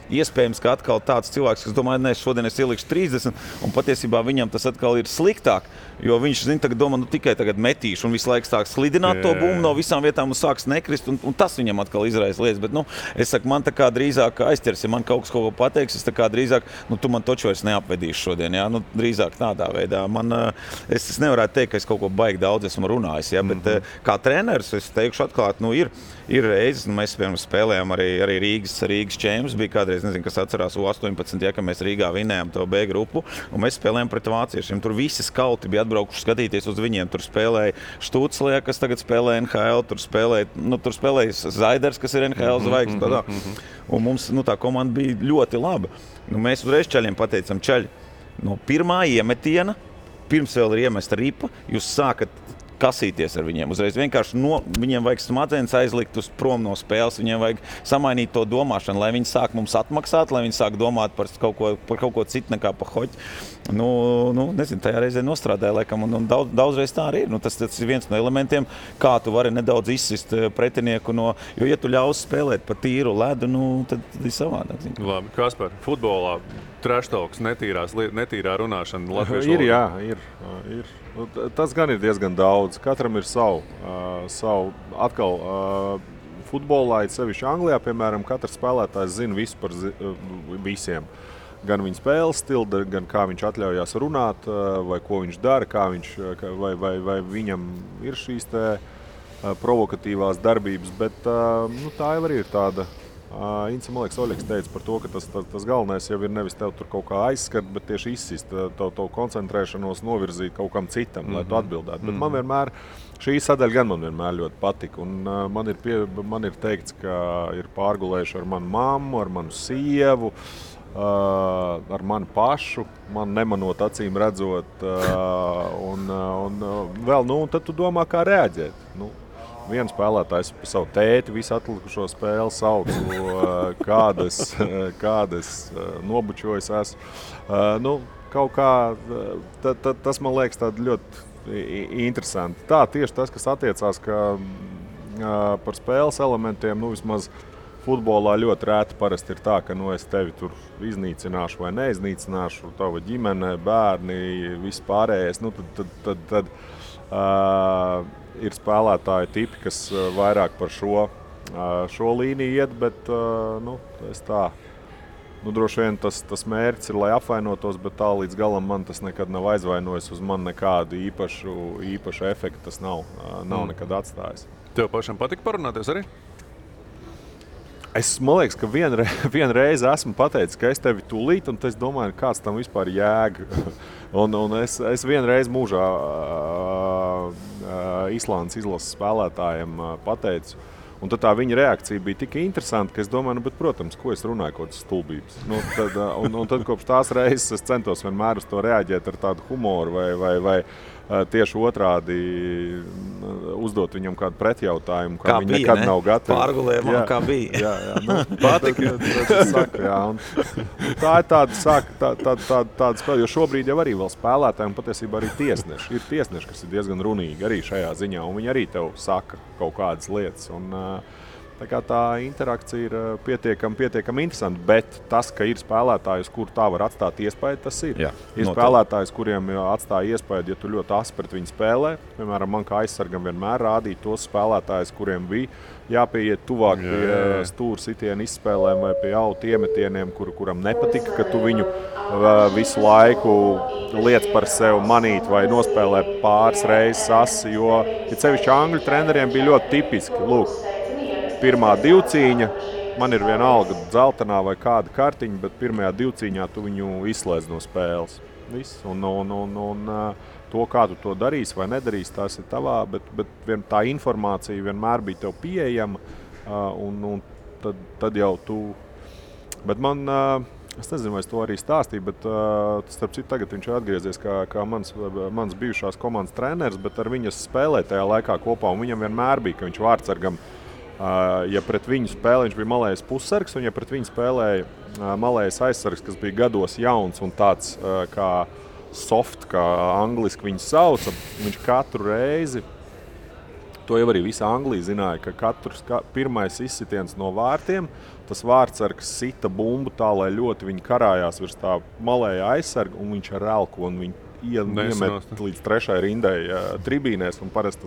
iespējams, ka atkal tāds cilvēks, kas domā, šodien es ielikšu 30, un patiesībā viņam tas atkal ir sliktāk, jo viņš, domā, tikai tagad metīšu, un visu laiku sāk slidināt to bumbu no visām vietām un sāks nekrist, un tas viņam atkal izraisa lietas. Bet, es saku, man tā kā drīzāk aizķers, ja man kaut kas kaut ko pateiks, es tā kā drīzāk, tu man taču vairs neapvedīšu šodien, ja, drīzāk tādā veidā. Es nevarētu teikt, ka es kaut ko baigi daudz esmu runājis, ja, bet kā treneris, es teikšu atklāt, ir reizes, mēs, piemēram, spēlējām arī Rīgas čēmas, bija kādreiz, nezinu, kas atcerās U18, ja, ka mēs Rīgā vinējām to B grupu, un mēs spēlējām pret vāciešiem. Tur visi skauti bija atbraukuši skatīties uz viņiem. Tur spēlēja Štuclē, kas tagad spēlē NHL, tur spēlēja Zaiders, kas ir NHL zvaigznes. Un mums tā komanda bija ļoti laba. Mēs uzreiz čaļiem pateicam, čaļi, no pirmā iemetiena, pirms vēl ir iemesta ripa, jūs sākat kasīties ar viņiem. Uzreiz vienkārši viņiem vajag smadzenes aizlikt uz prom no spēles, viņiem vajag samainīt to domāšanu, lai viņi sāk mums atmaksāt, lai viņi sāk domāt par kaut ko citu nekā par hoķi. Nezinu, tajā reizē nostrādāja, laikam, un daudzreiz tā arī ir. Tas ir viens no elementiem, kā tu vari nedaudz izsist pretinieku jo, ja tu ļaus spēlēt pa tīru ledu, tad ir savādāk. Labi, Kaspar, futbolā trashtalks, netīrā runāšana latviešu ir, jā, ir. Tas gan ir diezgan daudz. Katram ir savu. Atkal, futbolā, sevišķi Anglijā, piemēram, katrs spēlētājs zina visu par visiem. Gan viņa spēles stilu, gan kā viņš atļaujās runāt, vai ko viņš dara, vai viņam ir šīs provokatīvās darbības. Bet tā jau arī ir tāda. Ince, man liekas, Oļegs teica par to, ka tas galvenais jau ir nevis tev tur kaut kā aizskart, bet tieši izsist, to koncentrēšanos novirzīt kaut kam citam, lai tu atbildētu. Bet man vienmēr, šī sadaļa gan man vienmēr ļoti patika. Un man ir teikts, ka ir pārgulējuši ar manu mammu, ar manu sievu, ar mani pašu, man nemanot acīm redzot. Un vēl, tad tu domā, kā reaģēt. Viens spēlētājs par savu tēti visu atlikušo spēli sauc, kādas nobučojas esmu. Kaut kā, tas man liekas tādi ļoti interesanti. Tā tieši tas, kas attiecās par spēles elementiem, vismaz futbolā ļoti rēti parasti ir tā, ka es tevi tur iznīcināšu vai neiznīcināšu, tava ģimene, bērni, viss pārējais. Tad ir spēlētāji tipi, kas vairāk par šo līniju iet, bet es tā. Droši vien tas mērķis ir, lai apvainotos, bet tā līdz galam man tas nekad nav aizvainojis, uz man nekādu īpašu efektu tas nav nekad atstājis. Tev pašam patika parunāties arī? Man liekas, ka vienreiz esmu pateicis, ka es tevi tūlīt, un es domāju, kāds tam vispār jēga. un es vienreiz mūžā Islandes izlases spēlētājiem pateicu, un tad tā viņa reakcija bija tik interesanta, ka es domāju, bet, protams, ko es runāju, kaut kādas stulbības. Tad kopš tās reizes es centos vienmēr uz to reaģēt ar tādu humoru vai tieši otrādi uzdot viņam kādu pretjautājumu, kā viņi nekad nav gatavi. Pārgulējumā, kā bija. Patika. Tā ir tāda spēle, jo šobrīd jau arī vēl spēlētājiem patiesībā arī tiesneši. Ir tiesneši, kas ir diezgan runīgi arī šajā ziņā, un viņi arī tev saka kaut kādas lietas. Tā interakcija ir pietiekami interesanta, bet tas, ka ir spēlētājs, kur tā var atstāt iespēju, tas ir. Jā, ir spēlētājs, kuriem atstāja iespēju, ja tu ļoti asi pret viņu spēlē. Piemēram, man kā aizsargam vienmēr rādīja tos spēlētājus, kuriem bija jāpieiet tuvāk pie stūra sitiena izspēlēm vai pie autu iemetieniem, kuram nepatika, ka tu viņu visu laiku liec par sevi manīt vai nospēlē pāris reizes asi, jo sevišķi angļu treneriem bija ļoti tipiski. Lūk, pirmā divcīņa, man ir vienalga dzeltenā vai kāda kartiņa, bet pirmajā divcīņā tu viņu izslēdz no spēles. Viss. Un to, kā tu to darīsi vai nedarīsi, tas ir tavā, bet tā informācija vienmēr bija tev pieejama, un tad jau tu. Bet man, es nezinu, vai es to arī stāstīju, bet starp citu tagad viņš ir atgriezies kā mans bijušās komandas treneris, bet ar viņas spēlēja tajā laikā kopā, un viņam vienmēr bija, ka viņš vārdsargam, ja pret viņu spēlē, viņš bija malējs pussargs, un ja pret viņu spēlēja malējs aizsargs, kas bija gados jauns un tāds kā soft, kā angliski viņu sauca, viņš katru reizi, to jau arī visa Anglija zināja, ka pirmais izsitiens no vārtiem, tas vārdsargs sita bumbu tā, lai ļoti viņi karājās virs tā malēja aizsarga, un viņš ar elku, un viņi iemet līdz trešai rindai tribīnēs, un parasti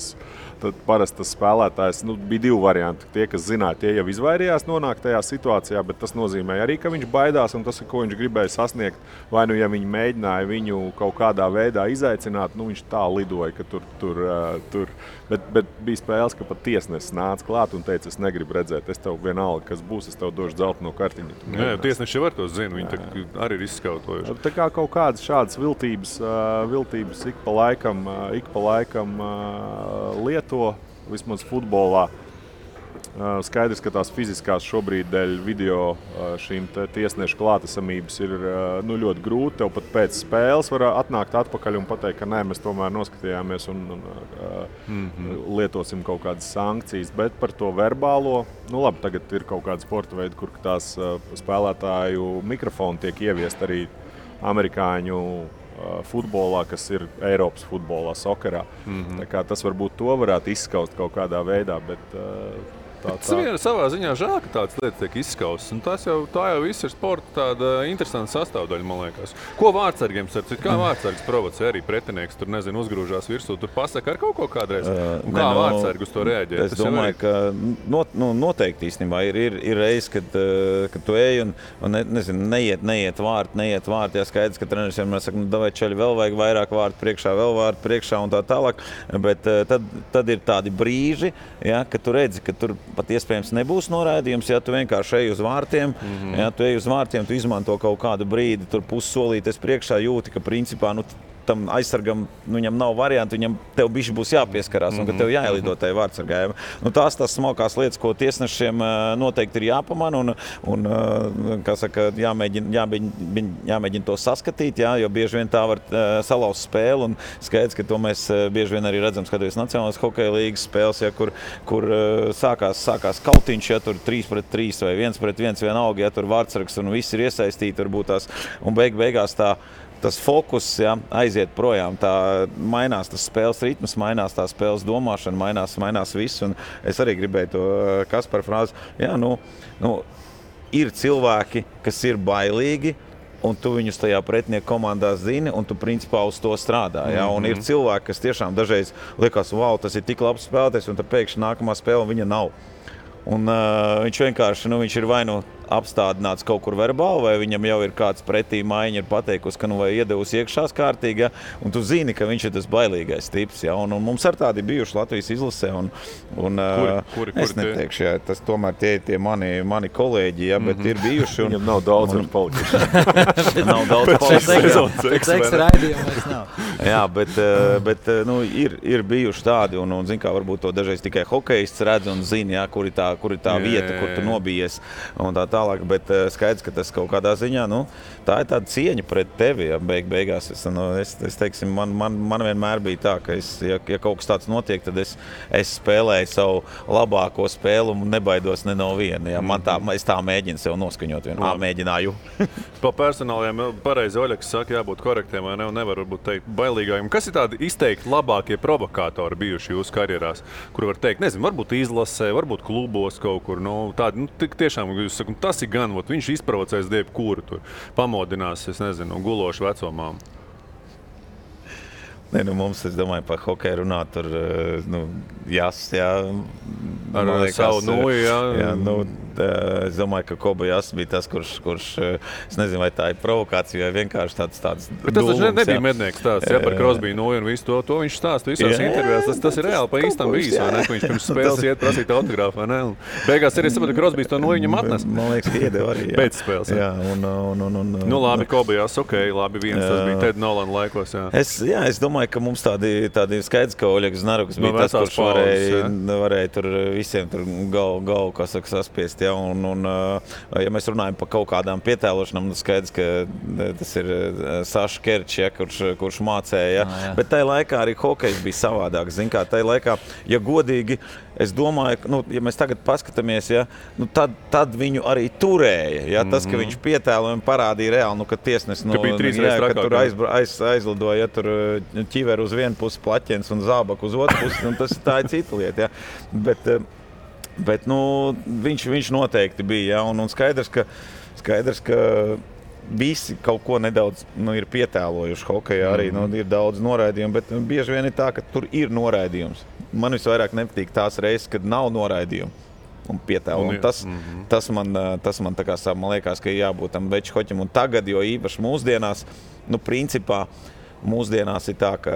tas spēlētājs, bija divi varianti. Tie, kas zināja, tie jau izvairījās nonākt tajā situācijā, bet tas nozīmē arī, ka viņš baidās, un tas ir, ko viņš gribēja sasniegt. Vai ja viņi mēģināja viņu kaut kādā veidā izaicināt, viņš tā lidoja, ka tur. Bet bija spēles, ka pat tiesnesis nāca klāt un teica, es negribu redzēt, es tev vienalga, kas būs, es tev došu dzelteno kartiņu. Jā, tiesneši jau var to zina, viņi arī ir izskautojuši. Tā kā kaut kādas šādas viltības ik pa laikam lieto, vismaz futbolā. Skaidrs, ka tās fiziskās šobrīd dēļ video šīm tiesnešu klātesamības ir ļoti grūti. Tev pat pēc spēles var atnākt atpakaļ un pateikt, ka nē, mēs tomēr noskatījāmies un lietosim kaut kādas sankcijas. Bet par to verbālo, labi, tagad ir kaut kāda sporta veida, kur tās spēlētāju mikrofoni tiek ieviest arī amerikāņu futbolā, kas ir Eiropas futbolā, sokerā. Tā kā tas varbūt to varētu izskaust kaut kādā veidā, bet Tas savā ziņā žēl, ka tādas lietas tiek izskaustas. Tā jau viss ir sporta tāda interesanta sastāvdaļa, man liekas. Ko vārdsargiem starp citu? Kā vārdsargs provocē arī pretinieks? Tur, nezinu, uzgrūžās virsū, tur pasaka ar kaut ko kādreiz. Un kā vārdsargi uz to reaģē? Es domāju, ka noteikti īstenībā ir reiz, kad tu ej un nezinu, neiet vārti. Jā, skaidrs, ka treneris vienmēr saka, davai čaļi, vēl vajag vairāk vārtu priekšā, vēl vārtu priekšā un tā tālāk. Bet tad ir tādi brīži, ja, kad tu redzi, ka tur pat iespējams nebūs noraidījums, ja tu vienkārši ej uz vārtiem, tu izmanto kaut kādu brīdi, tur pussolītes priekšā jūti, ka principā tam aizsargam viņam nav variantu, tev bišķi būs jāpieskarās un ka tev jāielido tai vārdsargājiem. Tās smalkās lietas, ko tiesnešiem noteikti ir jāpamana un kā saka, jāmēģina to saskatīt, jo bieži vien tā var salauzt spēli un skaidrs, ka to mēs bieži vien arī redzam, skatoties Nacionālās hokeja līgas spēles, kur sākās kautiņš, tur 3-3 vai 1-1 vienalga, tur vārdsargs un viss ir iesaistīti, varbūt tās, un beigās tas fokus aiziet projām, mainās tas spēles ritms, mainās tā spēles domāšana, mainās viss. Un es arī gribēju to Kaspara frāzi. Ir cilvēki, kas ir bailīgi, un tu viņus tajā pretinieku komandā zini, un tu principā uz to strādā. Un ir cilvēki, kas tiešām dažreiz liekas, wow, tas ir tik labs spēlētājs, un tad pēkšņi nākamā spēle viņa nav. Un viņš vienkārši viņš ir vai apstādināts kaut kur verbāli, vai viņam jau ir kāds pretī maiņa ir pateikusi, ka vai iedevusi iekšās kārtīgi, un tu zini, ka viņš ir tas bailīgais tips. Un mums ar tādi bijuši Latvijas izlasē. Kuri es neteikšu, tas tomēr tie mani kolēģi, bet ir bijuši. Viņam nav daudz ar palikuši. Nav daudz palikuši. Pēc raidījuma vairs nav. Jā, bet ir bijuši tādi, un zin kā, varbūt to dažreiz tikai hokejists redz un zina, kur ir tā vieta, kur tu nobijies un tā tālāk, bet skaidrs, ka tas kaut kādā ziņā, tā ir tāda cieņa pret tevi, beigās. Es teiksim, man vienmēr bija tā, ka ja kaut kas tāds notiek, tad es spēlēju savu labāko spēli un nebaidos ne no viena. Es tā mēģinu sev noskaņot vienu. Mēģināju. Pa personāliem pareizi Oļeks saka, jābūt korektiem, vai ne, un nevar varbūt teikt bailīgājiem. Kas ir tādi izteikti labākie provokātori bijuši jūsu karjerās, kur var teikt, nezinu, varbūt izlasē, varbūt klubos kaut kur, tādi, tiešām, jūs sakat, tas ir gan, viņš izprovocēs jebkuru tur, pamodinās, es nezinu, gulošu vecomām. Mums, es domāju, par hokeju runāt, tur, Jas, ar savu nuju, es domāju, ka Koba Jas bija tas, kurš, es nezinu, vai tā ir provokācija, vai vienkārši tāds bet tas taču nebija mednieks stāsts, par Crosby nuju un visu to viņš stāsta visās intervijās. Tas ir reāli pa īstam bijis, vai ne, ka viņš pirms spēles iet prasīt autogrāfu, vai ne? Un beigās arī sapratu, ka Crosby to nuju viņam atnes. Man liekas, ka iedeva arī. Pēc spēles, labi, Koba Jas, labi, viens tas bija Ted Nolan laikos, Es domāju, ka mums tādi skaidrs, ka Oļegs Znaruks bija tas, kurš varēja tur visiem tur galvu, kā saka, saspiest. Ja mēs runājam par kaut kādām pietēlošanām, skaidrs, ka tas ir Saša Kerčs, kurš mācēja. Bet tajā laikā arī hokejs bija savādāk. Zin kā, tajā laikā, ja godīgi, es domāju, ja mēs tagad paskatāmies, tad viņu arī turēja. Tas, ka viņš pietēlojumi parādīja reāli, ka tiesnes ka tur aizlidoja, tur ķiver uz vienu pusi plaķens un zābak uz otru pusi, tā ir cita lieta. Bet viņš noteikti bija, un skaidrs, ka visi kaut ko nedaudz ir pietēlojuši hokejā arī, ir daudz noraidījumu, bet bieži vien ir tā, ka tur ir noraidījums. Man visvairāk nepatīk tās reizes, kad nav noraidījumu un pietēlo. Tas man tā kā man liekas, ka jābūt tam veču hoķim, un tagad, jo īpaši mūsdienās, principā, mūsdienās ir tā, ka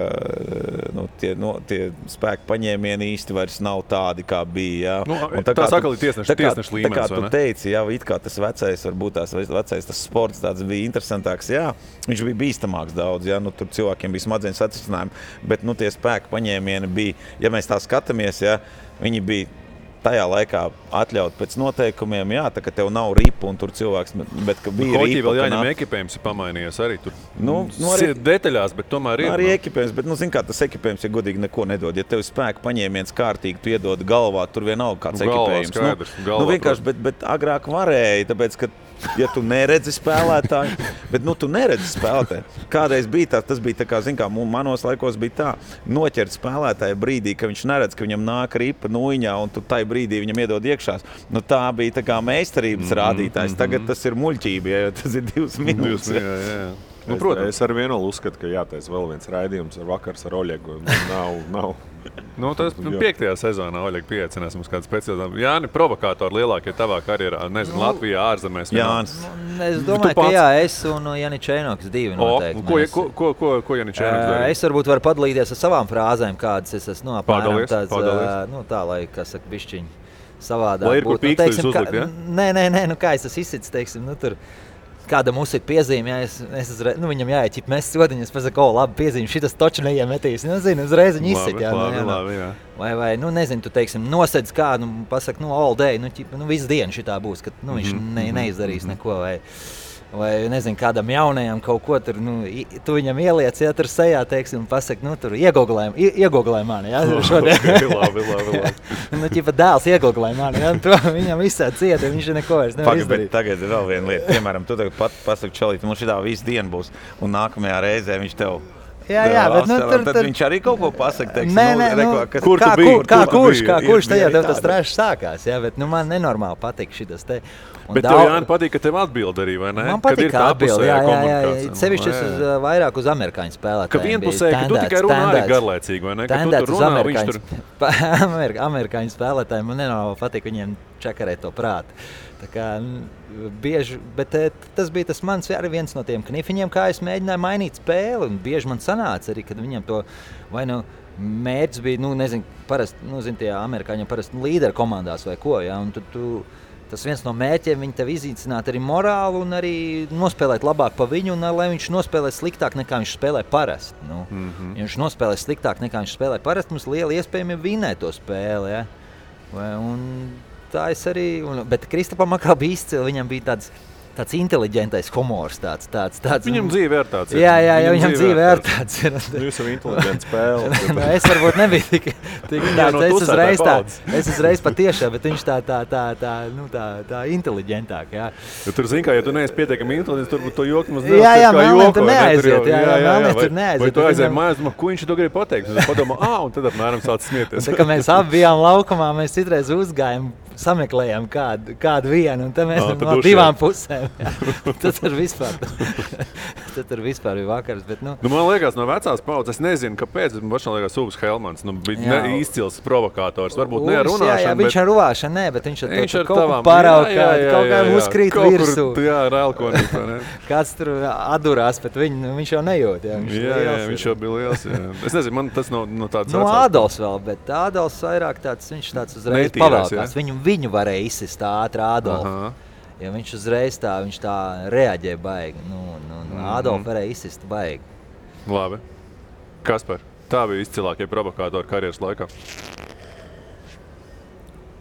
tie spēku paņēmieni īsti vairs nav tādi, kā bija. Tā sakali tiesneša līmenis, tā kā tu teici, it kā tas vecais, varbūt tas sports tāds bija interesantāks, viņš bija bīstamāks daudz, tur cilvēkiem bija smadzeņu satricinājumi, bet tie spēku paņēmieni bija, ja mēs tā skatāmies, viņi bija tajā laikā atļaut pēc noteikumiem, jā, tā ka tev nav ripa un tur cilvēks, bet ka bija Hoķī ripa. Vēl jāņem ekipējums ir pamainījies arī tur. Arī detaļās, bet tomēr ir. Arī ekipējums, bet, zin kā, tas ekipējums, ja godīgi neko nedod. Ja tev spēku paņēmiens kārtīgi, tu iedod galvā, tur vienalga kāds ekipējums. Skaidrs, vienkārši, bet agrāk varēja, tāpēc, ka ja tu neredzi spēlētāju, bet tu neredzi spēlētāju. Kādreiz bija tas bija tā kā, zin kā, manos laikos bija tā, noķert spēlētāju brīdī, ka viņš neredz, ka viņam nāk ripa nuiņā un tu tai brīdī viņam iedod iekšās. Tā bija tā kā meistarības rādītājs. Tagad tas ir muļķība, ja tas ir 2 minūtes. Protams. Es ar vienu uzskatu, ka jātais vēl viens raidījums ar vakars ar Oļegu. Nav. Tas 5. sezonā Oļega pieaicinās mums kādu speciālu. Jāni, provokātori lielākie tavā karjerā, nezinu, Latvijā, ārzemēs. Jānis. Es domāju, ka jā, es un Jānis Čēnoks 2 noteikti. Ko Jānis Čēnoks darīja? Es varbūt varu padalīties ar savām frāzēm, kādas es esmu Padalies. Tā, lai, kas saka, bišķiņi savādāk. Lai ir kur pīkstuļus uzlikt, ja? Nē, kā es esmu izsits, teiksim, tur. Kādam uzsit piezīmi, viņam jāieķip mēs sodiņas, pasaku, labi piezīmi, šitas toču neiemetīs. Uzreiz viņi izsit. Labi. Vai nezinu, tu teiksim, nosedz kādu, pasaku, all day, visu dienu šitā būs, ka viņš neizdarīs neko. Vai nezinu, kādam jaunajam kaut ko tur, tu viņam ieliec, ja tur sejā, teiksim, pasaka, tur iegoglē mani, ja, šodien. Labi. Dēls iegoglē mani, ja, to viņam visā cieta, viņš neko vairs nevar izdarīt. Tagad ir vēl viena lieta, piemēram, tu tagad pasaka, čalīt, mums šitā visu dienu būs, un nākamajā reizē viņš tev Jā, bet tad viņš arī kaut ko pasaka, teiksim, kur tu biji? Kurš tajā tev tas trešs sākās, jā, bet man nenormāli patīk šitas te. Bet tev, Jāni, patīk, ka tev atbild arī, vai ne? Man patīk, ka atbild, jā. Sevišķi es vairāk uz amerikāņu spēlētājiem. Ka vienpusēji, ka tu tikai runā arī garlaicīgi, vai ne? Ka tu tur runā, viņš tur... Amerikāņu spēlētājiem, man nenormāli patīk viņiem čakarēt to prātu. Tā kā bieži, bet tas bija tas mans arī viens no tiem knifiņiem, kā es mēģināju mainīt spēli, un bieži man sanāca arī, kad viņam to, vai mērķis bija, nezinu, parasti, tie amerikāņiem parasti līderi komandās vai ko, ja, un tas viens no mērķiem viņi tev izīcināt arī morālu un arī nospēlēt labāk pa viņu, un lai viņš nospēlē sliktāk nekā viņš spēlē parasti. Ja viņš nospēlē sliktāk nekā viņš spēlē parasti, mums liela iespējami vinēt to spēli, ja. Un tā es arī, bet Kristapam atkal bija izcili, viņam bija tāds inteliģentais humors, tāds. Viņam dzīve ir tāds. Jā, viņam dzīve ir tāds. Jūs jau inteliģents spēle. Es varbūt nebiju tik tāds, es uzreiz patiešām, bet viņš tā inteliģentāk, jā. Tur zin kā, ja tu neesi pietiekami inteliģents, tur to joku mums nevar. Jā, Melnē tur neaiziet, Melnē tur neaiziet. Vai tu aizēji mājās, ko viņš to grib pateikt? Es padomā, un tad apmēram sāc smieties. Tā kā mēs abi bijām laukumā, mēs citreiz uzgājām, sameklējām kādu vienu, un tad mēs no 2 pusēm. Tad tur vispār bija vakars. Bet, man liekas, no vecās paudzes, es nezinu, kāpēc. Man liekas, Uvs Helmans bija izcils provokators. Varbūt ne ar runāšanu. Jā, viņš ar runāšanu, bet viņš ar kaut ko paraukāt, kaut kā uzkrīt virsū. Jā, ar elkonīt. Kāds tur atdurās, bet viņš jau nejūt. Viņš jau bija liels. Es nezinu, man tas no tāds Ādolfs vēl, bet Ādolfs vairāk viņš tāds uzreiz pavēlkās. Viņu varēja izsist ātri Ādolfu. Ja viņš uzreiz viņš tā reaģē baigi. Ādolfu varēja izsist baigi. Labi. Kaspar, tā bija izcilākie provokātori karjeras laikā?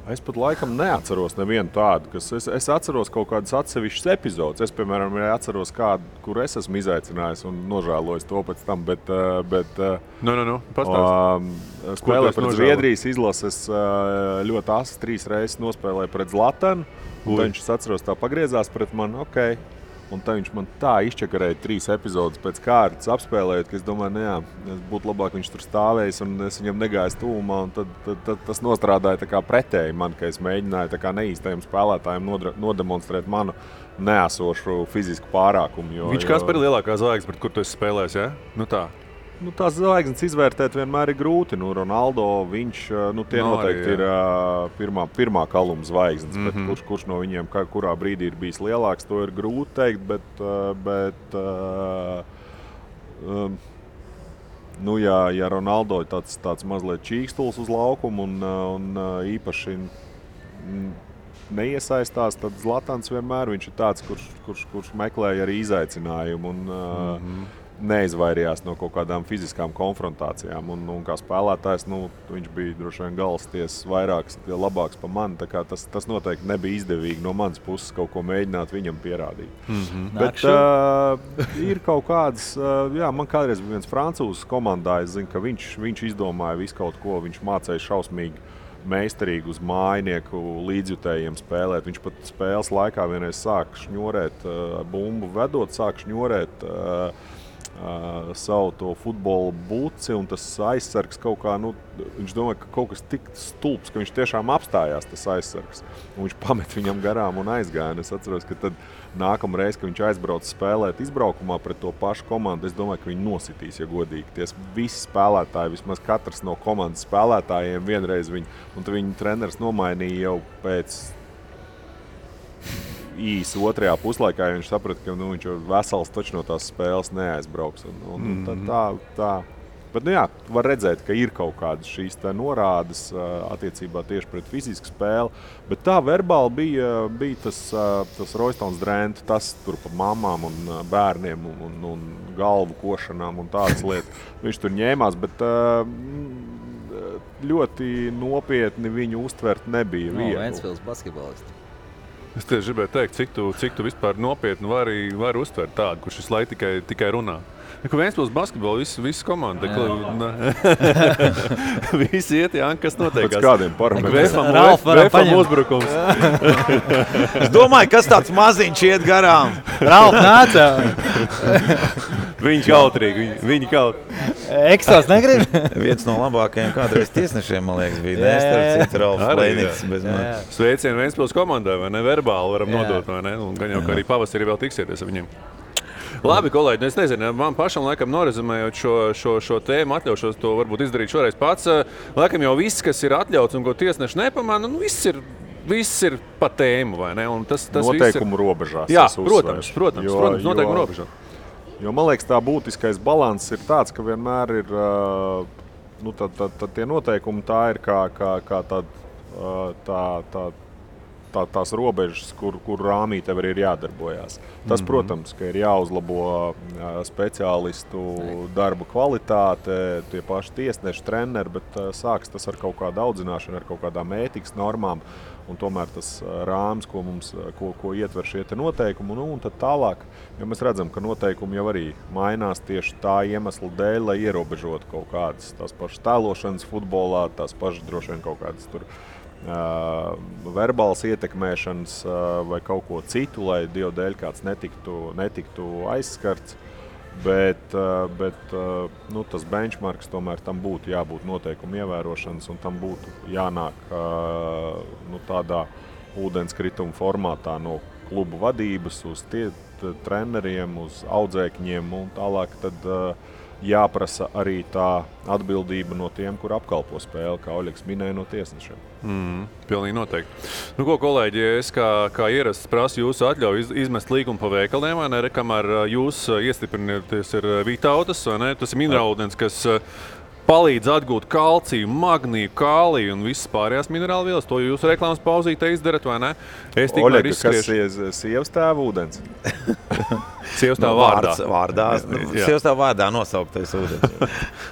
Es pat laikam neatceros nevienu tādu, kas es atceros kaut kādas atsevišķas epizodes. Es, piemēram, atceros kādu, kur es esmu izaicinājis un nožēlojis to pēc tam, bet spēlē pret Zviedrijas izlases ļoti asi 3 reizes nospēlēja pret Zlatanu, un viņš, es atceros, tā pagriezās pret mani, un tā viņš man tā izčakarēja 3 epizodes pēc kārtas apspēlējot, ka es domāju, būtu labāk viņš tur stāvējis un es viņam negāju tuvumā, un tad tas nostrādāja tā kā pretēji man, ka es mēģināju tā kā neīstajiem spēlētājiem nodemonstrēt manu neesošu fizisku pārākumu. Viņš kāds par lielākā zvaigznes, pret kur tu esi spēlējis, ja? Tā. Tās zvaigznes izvērtēt vienmēr ir grūti. Ronaldo, viņš, tie noteikti ir pirmā kaluma zvaigznes, bet kurš no viņiem kurā brīdī ir bijis lielāks, to ir grūti teikt, bet ja Ronaldo ir tāds mazliet čīkstuls uz laukumu un īpaši neiesaistās, tad Zlatans vienmēr viņš ir tāds, kurš meklēja arī izaicinājumu. neizvairījās no kaut kādām fiziskām konfrontācijām. Un kā spēlētājs, viņš bija droši vien galvstiesas vairāks, labāks par mani. Tā kā tas noteikti nebija izdevīgi no manas puses kaut ko mēģināt viņam pierādīt. Bet ir kaut kādas, man kādreiz bija viens francūzs komandā, es zinu, ka viņš izdomāja visu kaut ko, viņš mācīja šausmīgi meistarīgi uz mājinieku līdzjutējiem spēlēt. Viņš pat spēles laikā vienreiz sāk šņorēt, bumbu vedot, sāk šņorēt savu to futbola buci, un tas aizsargs kaut kā, viņš domāja, ka kaut kas tik stulbs, ka viņš tiešām apstājās tas aizsargs. Un viņš pamet viņam garām un aizgāja. Es atceros, ka tad nākamreiz, kad viņš aizbrauca spēlēt izbraukumā pret to pašu komandu, es domāju, ka viņi nositīs, ja godīgi. Tie visi spēlētāji, vismaz katrs no komandas spēlētājiem vienreiz un tad viņa treneris nomainīja jau pēc īsi otrajā puslaikā, viņš saprata, ka viņš jau vesels taču no tās spēles neaizbrauks. Tā. Bet, var redzēt, ka ir kaut kādas šīs norādes attiecībā tieši pret fizisku spēli, bet tā verbāli bija tas Roystons Drent, tas tur pa mamām un bērniem un galvu košanām un tādas lietas. Viņš tur ņēmās, bet ļoti nopietni viņu uztvert nebija viegli. Ventspils basketbolisti. Es tieši gribēju teikt, cik tu vispār nopietni vari uztvert tādu, kurš visu laiku tikai runā. Ka Ventspils basketbolu visu komanda. Visi iet, kas notiekās. Pēc kādiem parametriem. Vēfam uzbrukums. Es domāju, kas tāds maziņš iet garām. Ralf nāca. Viņi kautrīgi, viņi kaut. Ekstās negrib? Viens no labākajiem kādreiz tiesnešiem, man liekas, bija Nestarcits Ralfs Plēnītis. Sveicienu Ventspils komandai, vai ne? Verbāli varam nodot, vai ne? Un gan jau, ka arī pavasarī vēl tiksieties ar viņiem. Labi, kolēģi, es nezinu, man pašam laikam norezumējot šo tēmu, atļaušos to varbūt izdarīt šoreiz pats. Laikam jau viss, kas ir atļauts un ko tiesneši nepamana, viss ir pa tēmu, vai ne? Un tas noteikumu robežās. Jā, protams, noteikumu robežās. Jo man liekas, tā būtiskais balanss ir tāds, ka vienmēr ir tie noteikumi, tā ir kā tās robežas, kur rāmī tev ir jādarbojās. Tas, protams, ka ir jāuzlabo speciālistu darba kvalitāte, tie paši tiesneši, treneri, bet sāks tas ar kaut kādu audzināšanu, ar kaut kādām ētikas normām. Un tomēr tas rāms, ko ietver šie noteikumi, un tad tālāk, jo mēs redzam, ka noteikumi jau arī mainās tieši tā iemesla dēļ, lai ierobežotu kaut kādas tās pašas tēlošanas futbolā, tās pašas droši vien kaut kādas tur verbāls ietekmēšanas vai kaut ko citu, lai Dievu dēļ kāds netiktu aizskarts. Bet tas benchmarks tomēr tam būtu jābūt noteikumu ievērošanas, un tam būtu jānāk tādā ūdenskrituma formātā no klubu vadības uz treneriem, uz audzēkņiem, un tālāk tad jāprasa arī tā atbildība no tiem, kur apkalpo spēli, kā Oļegs minēja, no tiesnešiem. Pilnīgi noteikti. Ko, kolēģi, es kā ierasts prasu jūsu atļauju izmest līgumu pa veikaliem, vai ne? Kamēr jūs iestiprināties ir Vitautas, vai ne? Tas ir minerālūdens, kas palīdz atgūt kalciju, magniju, kāliju un visas pārējās minerālvielas. To jūs reklāmas pauzītē izdarat, vai ne? Oļega, kas sievas tēva ūdens? Sievas tēva vārdā. Sievas tēva vārdā nosauktais ūdens.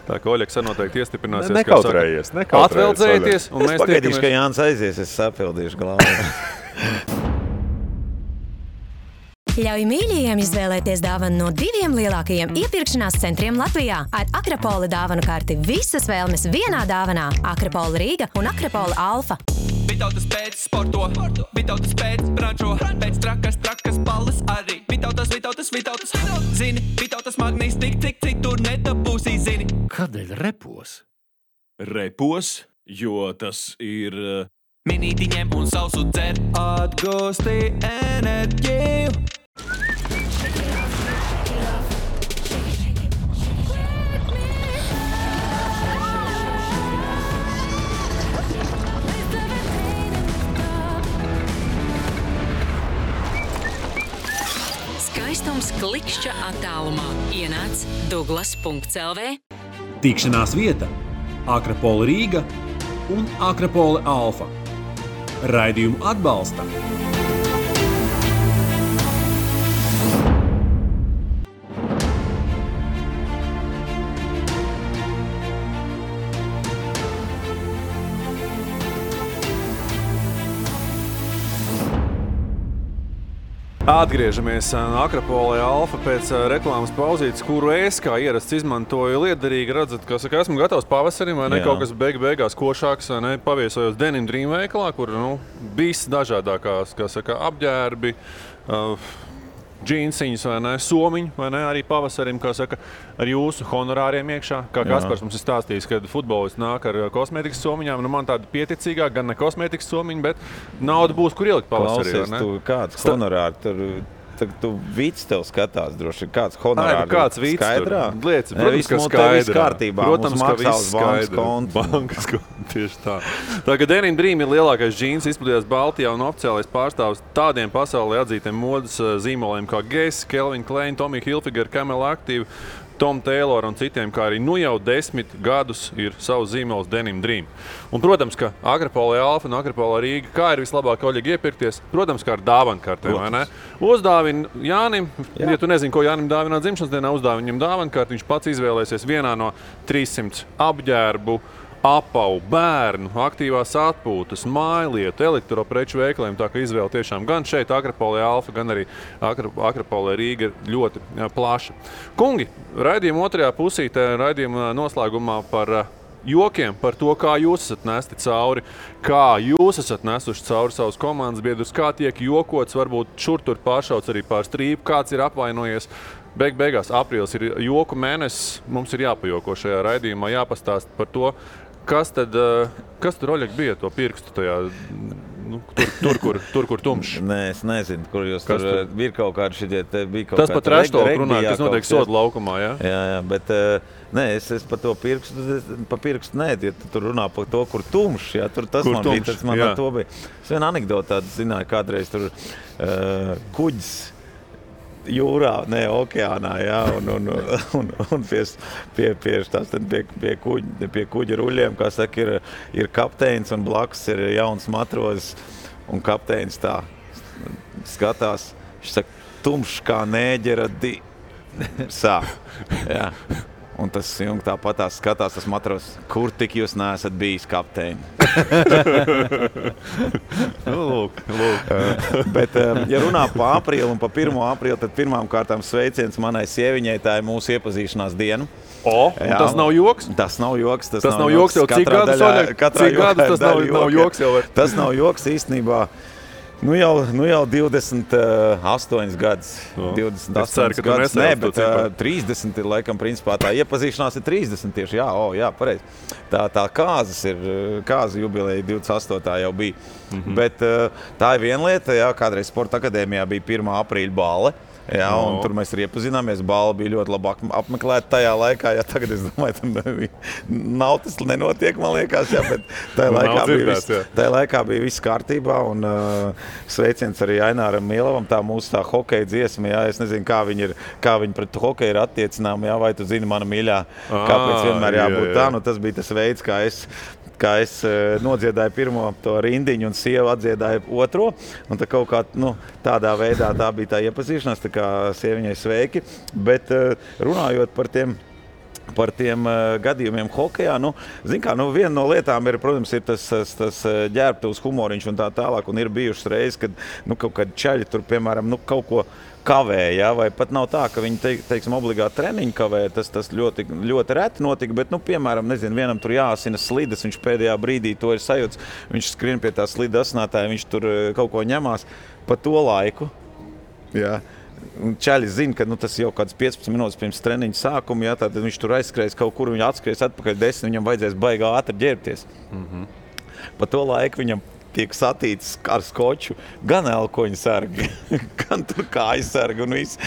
Tā kā Oļegs noteikti iestiprināsies. Nekautrējies. Atveldzējieties. Es pagaidīšu, ka Jānis aizies, es sapildīšu galvu. Ļauj mīļajiem izvēlēties dāvanu no 2 lielākajiem iepirkšanās centriem Latvijā. Ar Akrapola dāvanu karti visas vēlmes vienā dāvanā. Akrapola Rīga un Akrapola Alfa. Vitautas pēc sporto, Vitautas pēc brančo, pēc trakas balles arī. Vitautas. Zini, Vitautas magnīs tik, cik tur nedabūsī, zini. Kādēļ repos? Repos, jo tas ir... Minītiņiem un sausu dzer, atgūsti enerģiju. Skaistums klikšķa attālumā. Ienāc Douglas.lv. Tikšanās vieta Akrapola Rīga un Akrapola Alfa. Raidījumu atbalsta Atgriežamies Akropolē Alfa pēc reklāmas pauzītes, kuru es kā ierasts izmantoju liederīgi. Redzat, ka esmu gatavs pavasarim, vai ne? Kaut kas beigās košāks, vai ne? Paviesojos Denim Dream veikalā, kur viss dažādākās, apģērbi, džīnsiņas, vai ne, somiņi, vai ne, arī pavasarim, ar jūsu honorāriem iekšā. Kā Kaspars mums ir stāstījis, kad futbolists nāk ar kosmētikas somiņām, man tāda pieticīgāk, gan ne kosmētikas somiņi, bet nauda būs, kur ielikt pavasarī, vai ne? Klausies, tu kāds honorāri tur... Tagad tu vīts tev skatās droši, kāds honorāri kāds vīts skaidrā? Lieci, protams, ka skaidrā. Kārtībā. Protams, ka viss skaidrā. Bankas konts, tieši tā. Tā kā Denim Dream ir lielākais džīns izplatījās Baltijā un oficiālais pārstāvs tādiem pasaulē atzītiem modas zīmoliem kā Guess, Calvin Klein, Tommy Hilfiger, Camel Active, Tom Taylor un citiem, kā arī jau 10 gadus ir savs zīmols Denim Dream. Un, protams, ka Akropolē Alfa un Akropolē Rīga, kā ir vislabāk Oļegi iepirkties, protams, kā ar dāvankartēm, vai ne? Uzdāvini Jānim, ja tu nezini, ko Jānim dāvināt dzimšanas dienā, uzdāvini viņam dāvankarti, viņš pats izvēlēsies vienā no 300 apģērbu, apavu, bērnu, aktīvās atpūtas, mājlietu, elektropreču veikaliem, tā ka izvēle tiešām gan šeit Akropolē Alfa, gan arī Akropolē Rīga ir ļoti plaša. Kungi, raidījuma otrajā pusītē, raidījuma noslēgumā par jokiem, par to, kā jūs esat nesti cauri, kā jūs esat nesuši cauri savus komandas biedrus, kā tiek jokots, varbūt šur tur pāršauts arī pār strīpu, kāds ir apvainojies. Beigās aprīlis ir joku mēnesis, mums ir jāpajoko šajā raidījumā, jāpastāst par to, kas tur, Oļeg, bija to pirkstu tajā, tur, kur tumšs? Nē, es nezinu, kur jūs tur bija kaut kādi šitie, bija kaut tas pat reštoli runāja, kas notiek soda laukumā, jā? Jā, bet nē, es par to pirkstu nē, ja tu tur runā par to, kur tumšs, jā, tur tas kur man tumšs, bija, tas man ar to bija. Es vienu anekdotu tādu zināju, kādreiz tur kuģis jūrā, ne okeānā, jā, un pie kuģa ruļiem, kā saka, ir kapteinis un blakus ir jauns matrozis, un kapteinis tā skatās, viņš saka, tumšs kā nēģera sāk, jā. Un tas jungs tāpat skatās, tas matros, kur tik jūs neesat bijis kapteini. Lūk. Bet, ja runā pa aprīli un pa 1. aprīli, tad pirmām kārtām sveiciens manai sieviņai, tā ir mūsu iepazīšanās diena. Un tas nav joks? Tas nav joks. Tas nav joks jau cik gadus, Oļeg? Cik gadus tas nav joks jau? Tas nav joks īstenībā. Nu jau 28 gadus. 28 gadus. Nē, bet 30 ir laikam principā tā iepazīšanās ir 30 tieši. Jā, pareizi. Tā kāza jubileja 28. jau bija. Bet tā ir viena lieta, jā, kādreiz Sporta akadēmijā bija 1. aprīļa balle. Jā, un tur mēs arī iepazināmies. Bala bija ļoti labi apmeklēta tajā laikā. Jā, tagad es domāju, tam nav tas nenotiek, man liekas, jā, bet tajā laikā bija viss kārtībā. Un sveiciens arī Aināram Mielavam, tā mūsu tā hokeja dziesma. Jā, es nezinu, kā viņi pret hokeju ir attiecināmi, jā, vai tu zini, mana mīļā, kāpēc vienmēr jābūt tā. Nu, tas bija tas veids, kā es nodziedāju pirmo to rindiņu un sieva atdziedāja otro. Un tā kaut kā tādā veidā tā bija tā iepazīšanās, tā kā sieviņai sveiki. Bet runājot par tiem gadījumiem hokejā, viena no lietām ir, protams, ir tas ģērbtuvs humoriņš un tā tālāk. Un ir bijušas reizes, kad kaut kādi čaļi tur, piemēram, kaut ko kavē, jā, vai pat nav tā, ka viņi, teiksim, obligāti treniņu kavē, tas ļoti, ļoti reti notika, bet, piemēram, nezinu, vienam tur jāasina slidas, viņš pēdējā brīdī to ir sajūts, viņš skrien pie tā slida asinātāja, viņš tur kaut ko ņemās pa to laiku, jā. Un čaļi zina, ka tas jau kāds 15 minūtes pirms treniņa sākuma, jā, tad viņš tur aizskries kaut kur, viņš atskries atpakaļ 10, viņam vajadzēs baigā ātri ģērbties. Pa to laiku viņam tiek satīts ar skoču gan elkoņu sargi, gan tur kāju sargi un viss.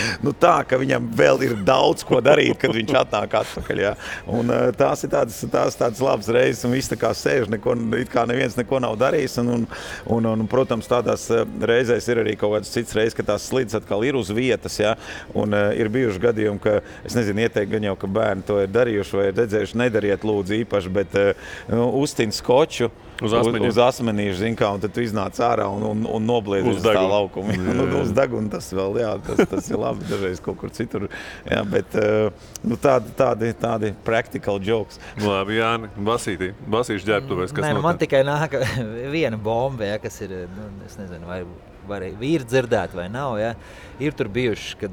Tā, ka viņam vēl ir daudz ko darīt, kad viņš atnāk atpakaļ. Jā. Un tās ir tādas labas reizes, un viss tā kā sēž, it kā neviens neko nav darījis. Un protams, tādās reizēs ir arī kaut kāds cits reizes, ka tās slidas atkal ir uz vietas. Jā. Un ir bijuši gadījumi, ka, es nezinu, ieteikt gan jau, ka bērni to ir darījuši vai ir redzējuši, nedariet lūdzu īpaši, bet uztin skoču uz asmenīšu, zin kā, un tad tu iznāc ārā un nobliedz uz tā laukuma. Uz deguna tas vēl, jā, tas ir labi, dažreiz kaut kur citur. Jā, bet tādi practical jokes. Labi, Jāni, Basīšu ģērbtuvēs, kas notiek? Man tikai nāk viena bomba, jā, kas ir, es nezinu, vai var vīri dzirdēt vai nav. Ja? Ir tur bijuši, kad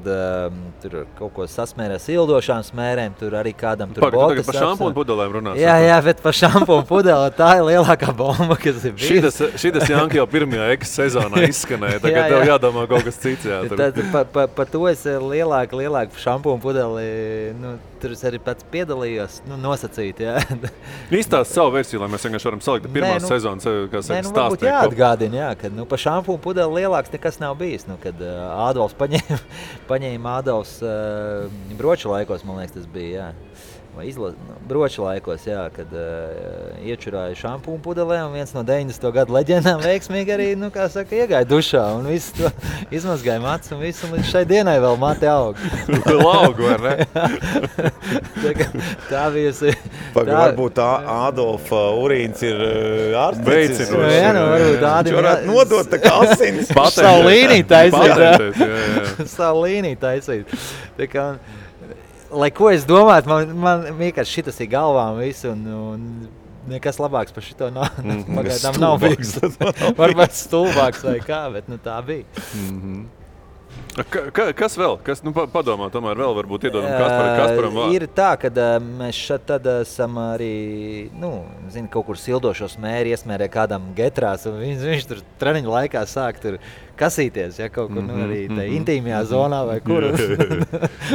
tur kaut ko sasmērē sildošām smērēm, tur arī kādam tur botas. Par šampūnu pudelēm runās. Jā, bet par šampūnu pudeli tā ir lielākā bomba, kas ir bijusi. Šitas Janka jau pirmajā sezonā izskanēja, tagad tev jādomā kaut kas cits. Jā, par to es lielāku šampūnu pudeli, tur es arī pats piedalījos, nosacīt. Izstāst savu versiju, lai mēs vienkārši varam salikt pirmās sezonas, kas stāstīt. Varbūt jāatgādina, ka par šampūnu pudeli lielāks nekas nav bijis. Kad Ādolfs paņēma Ādolfs broču laikos, man liekas, tas bija, vai broču laikos, kad iečurāja šampūnu pudelē, un viens no 90. gadu leģendām veiksmīgi arī, iegāja dušā, un visu to izmazgāja mats, un visu, un līdz šai dienai vēl mati aug. Laugu, vai ne? Tā bijusi. Varbūt Ādolfa urīns ir ārstnicis. Varbūt Ādim varētu nodot tā kā asinis. Savu līniju taisīt. Savu līniju taisīt. Tā kā, lai ko es domātu, man vienkārši šitas ir galvām visu, un nekas labāks par šito pagaidām nav bijis. Varbūt stulbāks vai kā, bet tā bija. Kas vēl? Padomā, tomēr vēl varbūt iedodam Kasparam vārdu. Ir tā, ka mēs šeit tad esam arī, kaut kur sildošos mēri iesmērē kādam getrās, un viņš tur treniņu laikā sāk tur kasīties, kaut kur arī tā intīmajā zonā vai kur.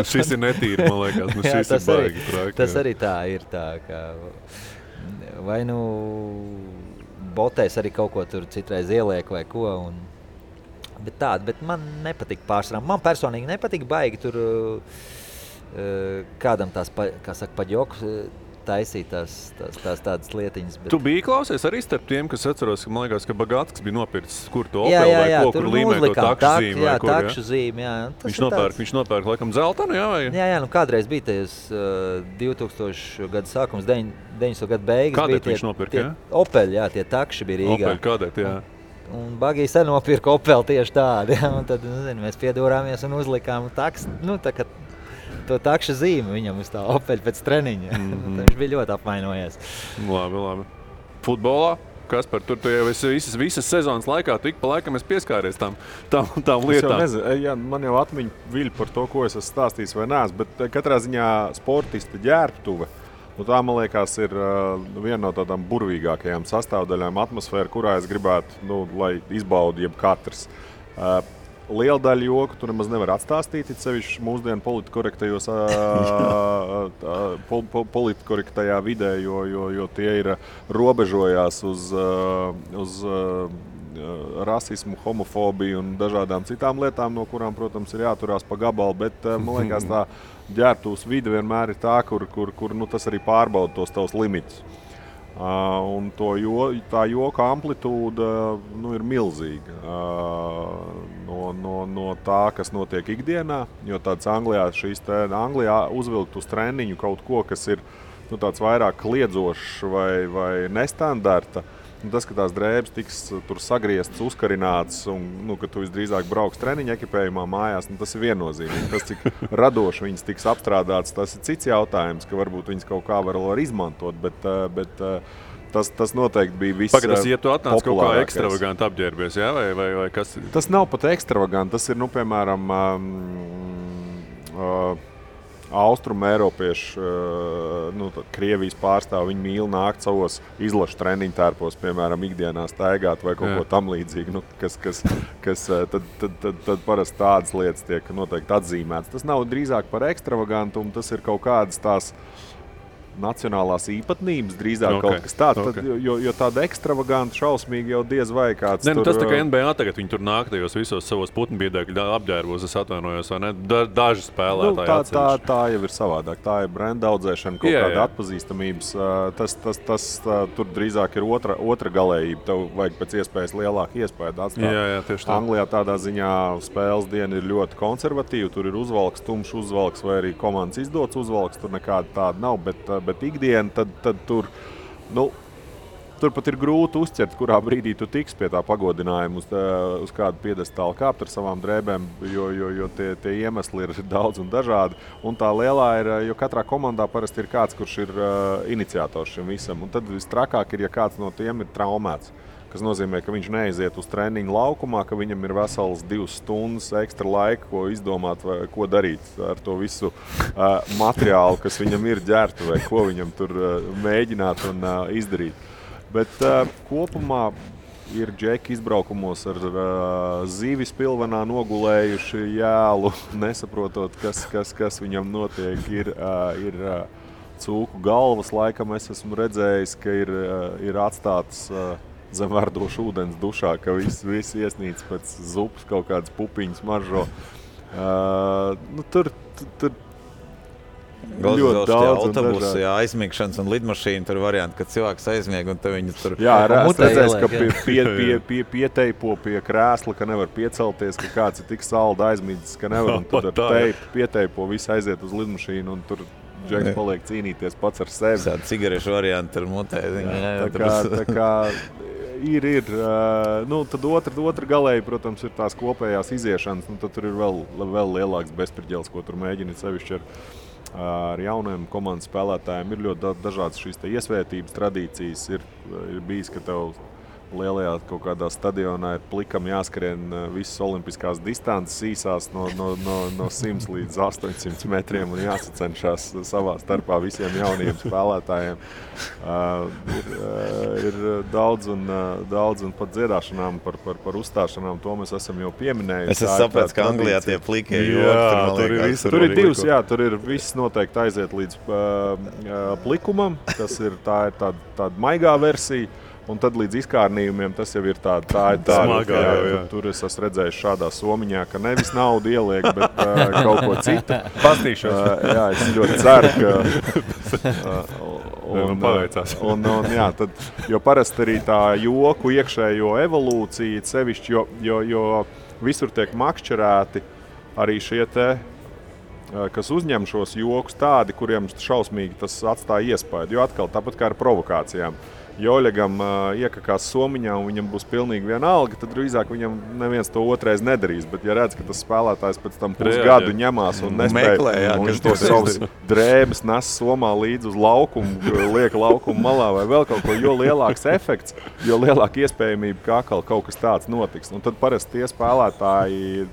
Šis ir netīri, man liekas. Šis ir baigi traki. Tas arī tā ir tā, ka vai botēs arī kaut ko tur citreiz ieliek vai ko, Bet man nepatīk pārsvarā. Man personīgi nepatīk baigi tur kādam tās, kā saka, paģoku taisīt tās tādas lietiņas. Bet... Tu biji klausies arī starp tiem, kas atceros, ka man liekas, ka Bagātskis bija nopircis kur to Opel vai ko, kur līmē to takšu zīmi vai kur. Takšu zīmi, jā. Viņš nopērk laikam zeltanu, jā? Vai? Jā, kādreiz bija tajos 2000 gadu sākums, 90. gadu beigas. Kādēt viņš nopirka, jā? Opel, jā, tie takši bija Rīgā. Opel, kādēt, jā. Un Bagijs arī nopirka Opel tieši tādu, ja? Un tad mēs piedūrāmies un uzlikām to takšu zīmi viņam uz tā Opel pēc treniņa. Viņš bija ļoti apvainojies. Labi. Futbolā? Kaspar, tur tu jau visas sezonas laikā, tu ik pa laikam esi pieskāries tām lietām. Es jau nezinu, man jau atmiņa viļ par to, ko es esmu stāstījis vai neesmu, bet katrā ziņā sportista ģērbtuve. Tā, man liekas, ir viena no tādām burvīgākajām sastāvdaļām atmosfēra, kurā es gribētu, lai izbaudu jebkatrs. Liela daļa joku tu nemaz nevar atstāstīt, it sevišķi mūsdienu politkorektajā vidē, jo tie ir robežojās uz rasismu, homofobiju un dažādām citām lietām, no kurām, protams, ir jāturās pa gabalu, bet man liekas, tā ģērbtuves vide vienmēr ir tā, kur tas arī pārbauda tos tavus limitus. Un tā joka amplitūda ir milzīga no tā, kas notiek ikdienā, jo tāds Anglijā uzvilkt uz treniņu kaut ko, kas ir tāds vairāk kliedzošs vai nestandarta. Tas, ka tās drēbes tiks tur sagrieztas, uzkarinātas un ka tu visdrīzāk brauks treniņa ekipējumā mājās, tas ir viennozīmīgi. Tas, cik radoši viņas tiks apstrādātas, tas ir cits jautājums, ka varbūt viņas kaut kā var izmantot, bet tas noteikti bija viss populārākais. Pagaidās, ja tu atnāc kaut kā ekstravaganti apģērbies, jā? Vai kas? Tas nav pat ekstravaganti, tas ir, piemēram, Austrumu Eiropiešu, Krievijas pārstāvi, viņi mīl nākt savos izlašu treniņu tērpos, piemēram, ikdienā staigāt vai kaut ko tam līdzīgi, tad parasti tādas lietas tiek noteikti atzīmētas. Tas nav drīzāk par ekstravagantumu, tas ir kaut kādas tās nacionālās īpatnības, drīzāk kaut kas tāds, jo tāda ekstravaganta šausmīgi jau diez vai kāds tur... Tas tā kā NBA tagad, viņi tur nāk tajos visos savos putnbiedēkļu apģērbos, es atvainojos, vai ne? Daži spēlētāji atsevišķi. Tā jau ir savādāk, tā ir brenda audzēšana, kaut kāda atpazīstamības. Tas tur drīzāk ir otra galējība, tev vajag pēc iespējas lielāku iespēju atstāt. Jā, tieši tā. Anglijā tādā ziņā spēles diena ir ļoti konservatīva, tur ir uzvalks, tumšs uzvalks vai arī komandas izdots uzvalks, tur nekāda tāda nav, bet ikdiena, tad tur pat ir grūti uzķert, kurā brīdī tu tiks pie tā pagodinājuma uz kādu piedestālu kāpt ar savām drēbēm, jo tie iemesli ir daudz un dažādi. Un tā lielā ir, jo katrā komandā parasti ir kāds, kurš ir iniciators šim visam. Un tad vistrakāk ir, ja kāds no tiem ir traumēts. kas nozīmē, ka viņš neiziet uz treniņu laukumā, ka viņam ir vesels 2 stundas ekstra laika, ko izdomāt vai ko darīt ar to visu materiālu, kas viņam ir ģērta vai ko viņam tur mēģināt un izdarīt. Bet kopumā ir džeki izbraukumos ar zivis pilvenā nogulējuši jēlu, nesaprotot, kas viņam notiek. Ir cūku galvas, laikam es esmu redzējis, ka ir atstātas zem verdošu ūdens dušā, ka viss iesnīts pēc zupas kaut kādas pupiņas maržo. Tur ļoti daudz autobusi, aizmigšanas un lidmašīna, tur varianti, kad cilvēks aizmieg un viņi tur... Jā, es redzēju, ka pieteipo pie krēsla, ka nevar piecelties, ka kāds ir tik salda aizmīdis, ka nevar, un tad ar pieteipo visi aiziet uz lidmašīnu un tur džeks paliek cīnīties pats ar sevi. Tāda cigarešu varianti ar mutē. Tā kā ir. Tad otra galēji, protams, ir tās kopējās iziešanas, tad tur ir vēl lielāks bezpirģēls, ko tur mēģina sevišķi ar jauniem komandas spēlētājiem. Ir ļoti dažādas šīs iesvētības tradīcijas. Ir bijis, ka tev lielajā kaut kādā stadionā ir plikam jāskrien visas olimpiskās distances īsās no 100 līdz 800 metriem un jāsacenšās savā starpā visiem jauniem spēlētājiem. Ir daudz un pat dziedāšanām par uzstāšanām, to mēs esam jau pieminējuši. Es sapratu, ka Anglijā tie plikie joki. Tur ir divas, tur ir viss noteikti aiziet līdz plikumam, tā ir tāda maigā versija. Un tad līdz izkārnījumiem tas jau ir tāda smagā. Tur es esmu redzējis šādā somiņā, ka nevis naudu ieliek, bet kaut ko citu. Pastīšos. Jā, es ļoti ceru, ka... paveicās. Jo parasti arī tā joku iekšējo evolūcija, sevišķi, jo visur tiek makšķerēti arī šie te, kas uzņem šos jokus tādi, kuriem šausmīgi tas atstāja iespēju. Jo atkal tāpat kā ar provokācijām. Joļegam iekakās somiņā un viņam būs pilnīgi vienalga, tad drīzāk viņam neviens to otrais nedarīs. Bet ja redz, ka tas spēlētājs pēc tam pusgadu ņemās un nespēja, un viņš to savus drēbes nes somā līdz uz laukumu, liek laukumu malā vai vēl kaut ko, jo lielāks efekts, jo lielāka iespējamība, ka atkal kaut kas tāds notiks. Un tad parasti tie spēlētāji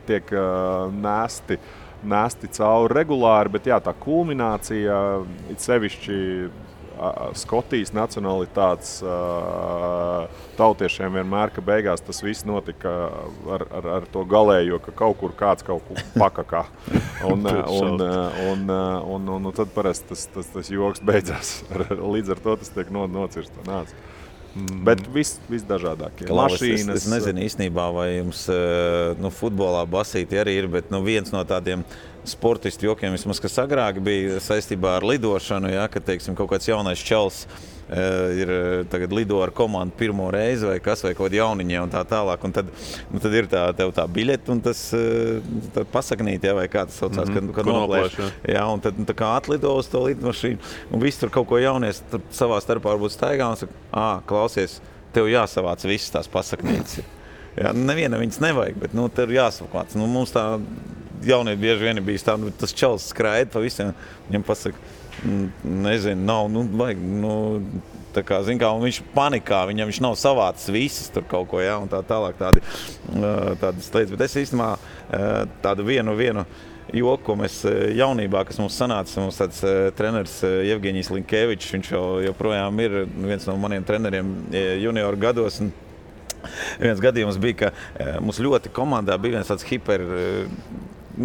tiek nesti cauri regulāri, bet jā, tā kulminācija, it sevišķi Skotijas nacionalitātes tautiešiem vienmēr, ka beigās tas viss notika ar to galējo, ka kaut kur kāds kaut kur pakakā. Un tad parasti tas joks beidzās. Līdz ar to tas tiek nocirst un nāc. Bet viss dažādākie. Mašīnas. Es nezinu īstenībā, vai jums futbolā basīti arī ir, bet viens no tādiem sportistu jokiem, vismaz, kas agrāk bija saistībā ar lidošanu, kad, teiksim, kaut kāds jaunais čels ir tagad lido ar komandu pirmo reizi vai kaut kādi jauniņie un tā tālāk. Un tad ir tev tā biļete un tas pasaknīt, vai kā tas saucās, kad noplēš. Jā, un tad tā kā atlido uz to lidmašīnu un viss tur kaut ko jaunies savā starpā varbūt staigā un saka, klausies, tev jāsavāc visas tās pasaknītes. Jā, neviena viņas nevajag, bet tev jāsavāc. Mums tā jaunie bieži vien bijis tā, tas čels skraida pa visiem, viņam pasaka, nezinu, nav, vajag, tā kā, zin kā, un viņš panikā, viņš nav savācis visas tur kaut ko, un tā tālāk tādas lietas, bet es īstenībā tādu vienu joku, ko mēs jaunībā, kas mums sanāca, mums tāds treneris Jevgeņijs Linkevičs, viņš joprojām ir viens no maniem treneriem junioru gados, un viens gadījums bija, ka mums ļoti komandā bija viens tāds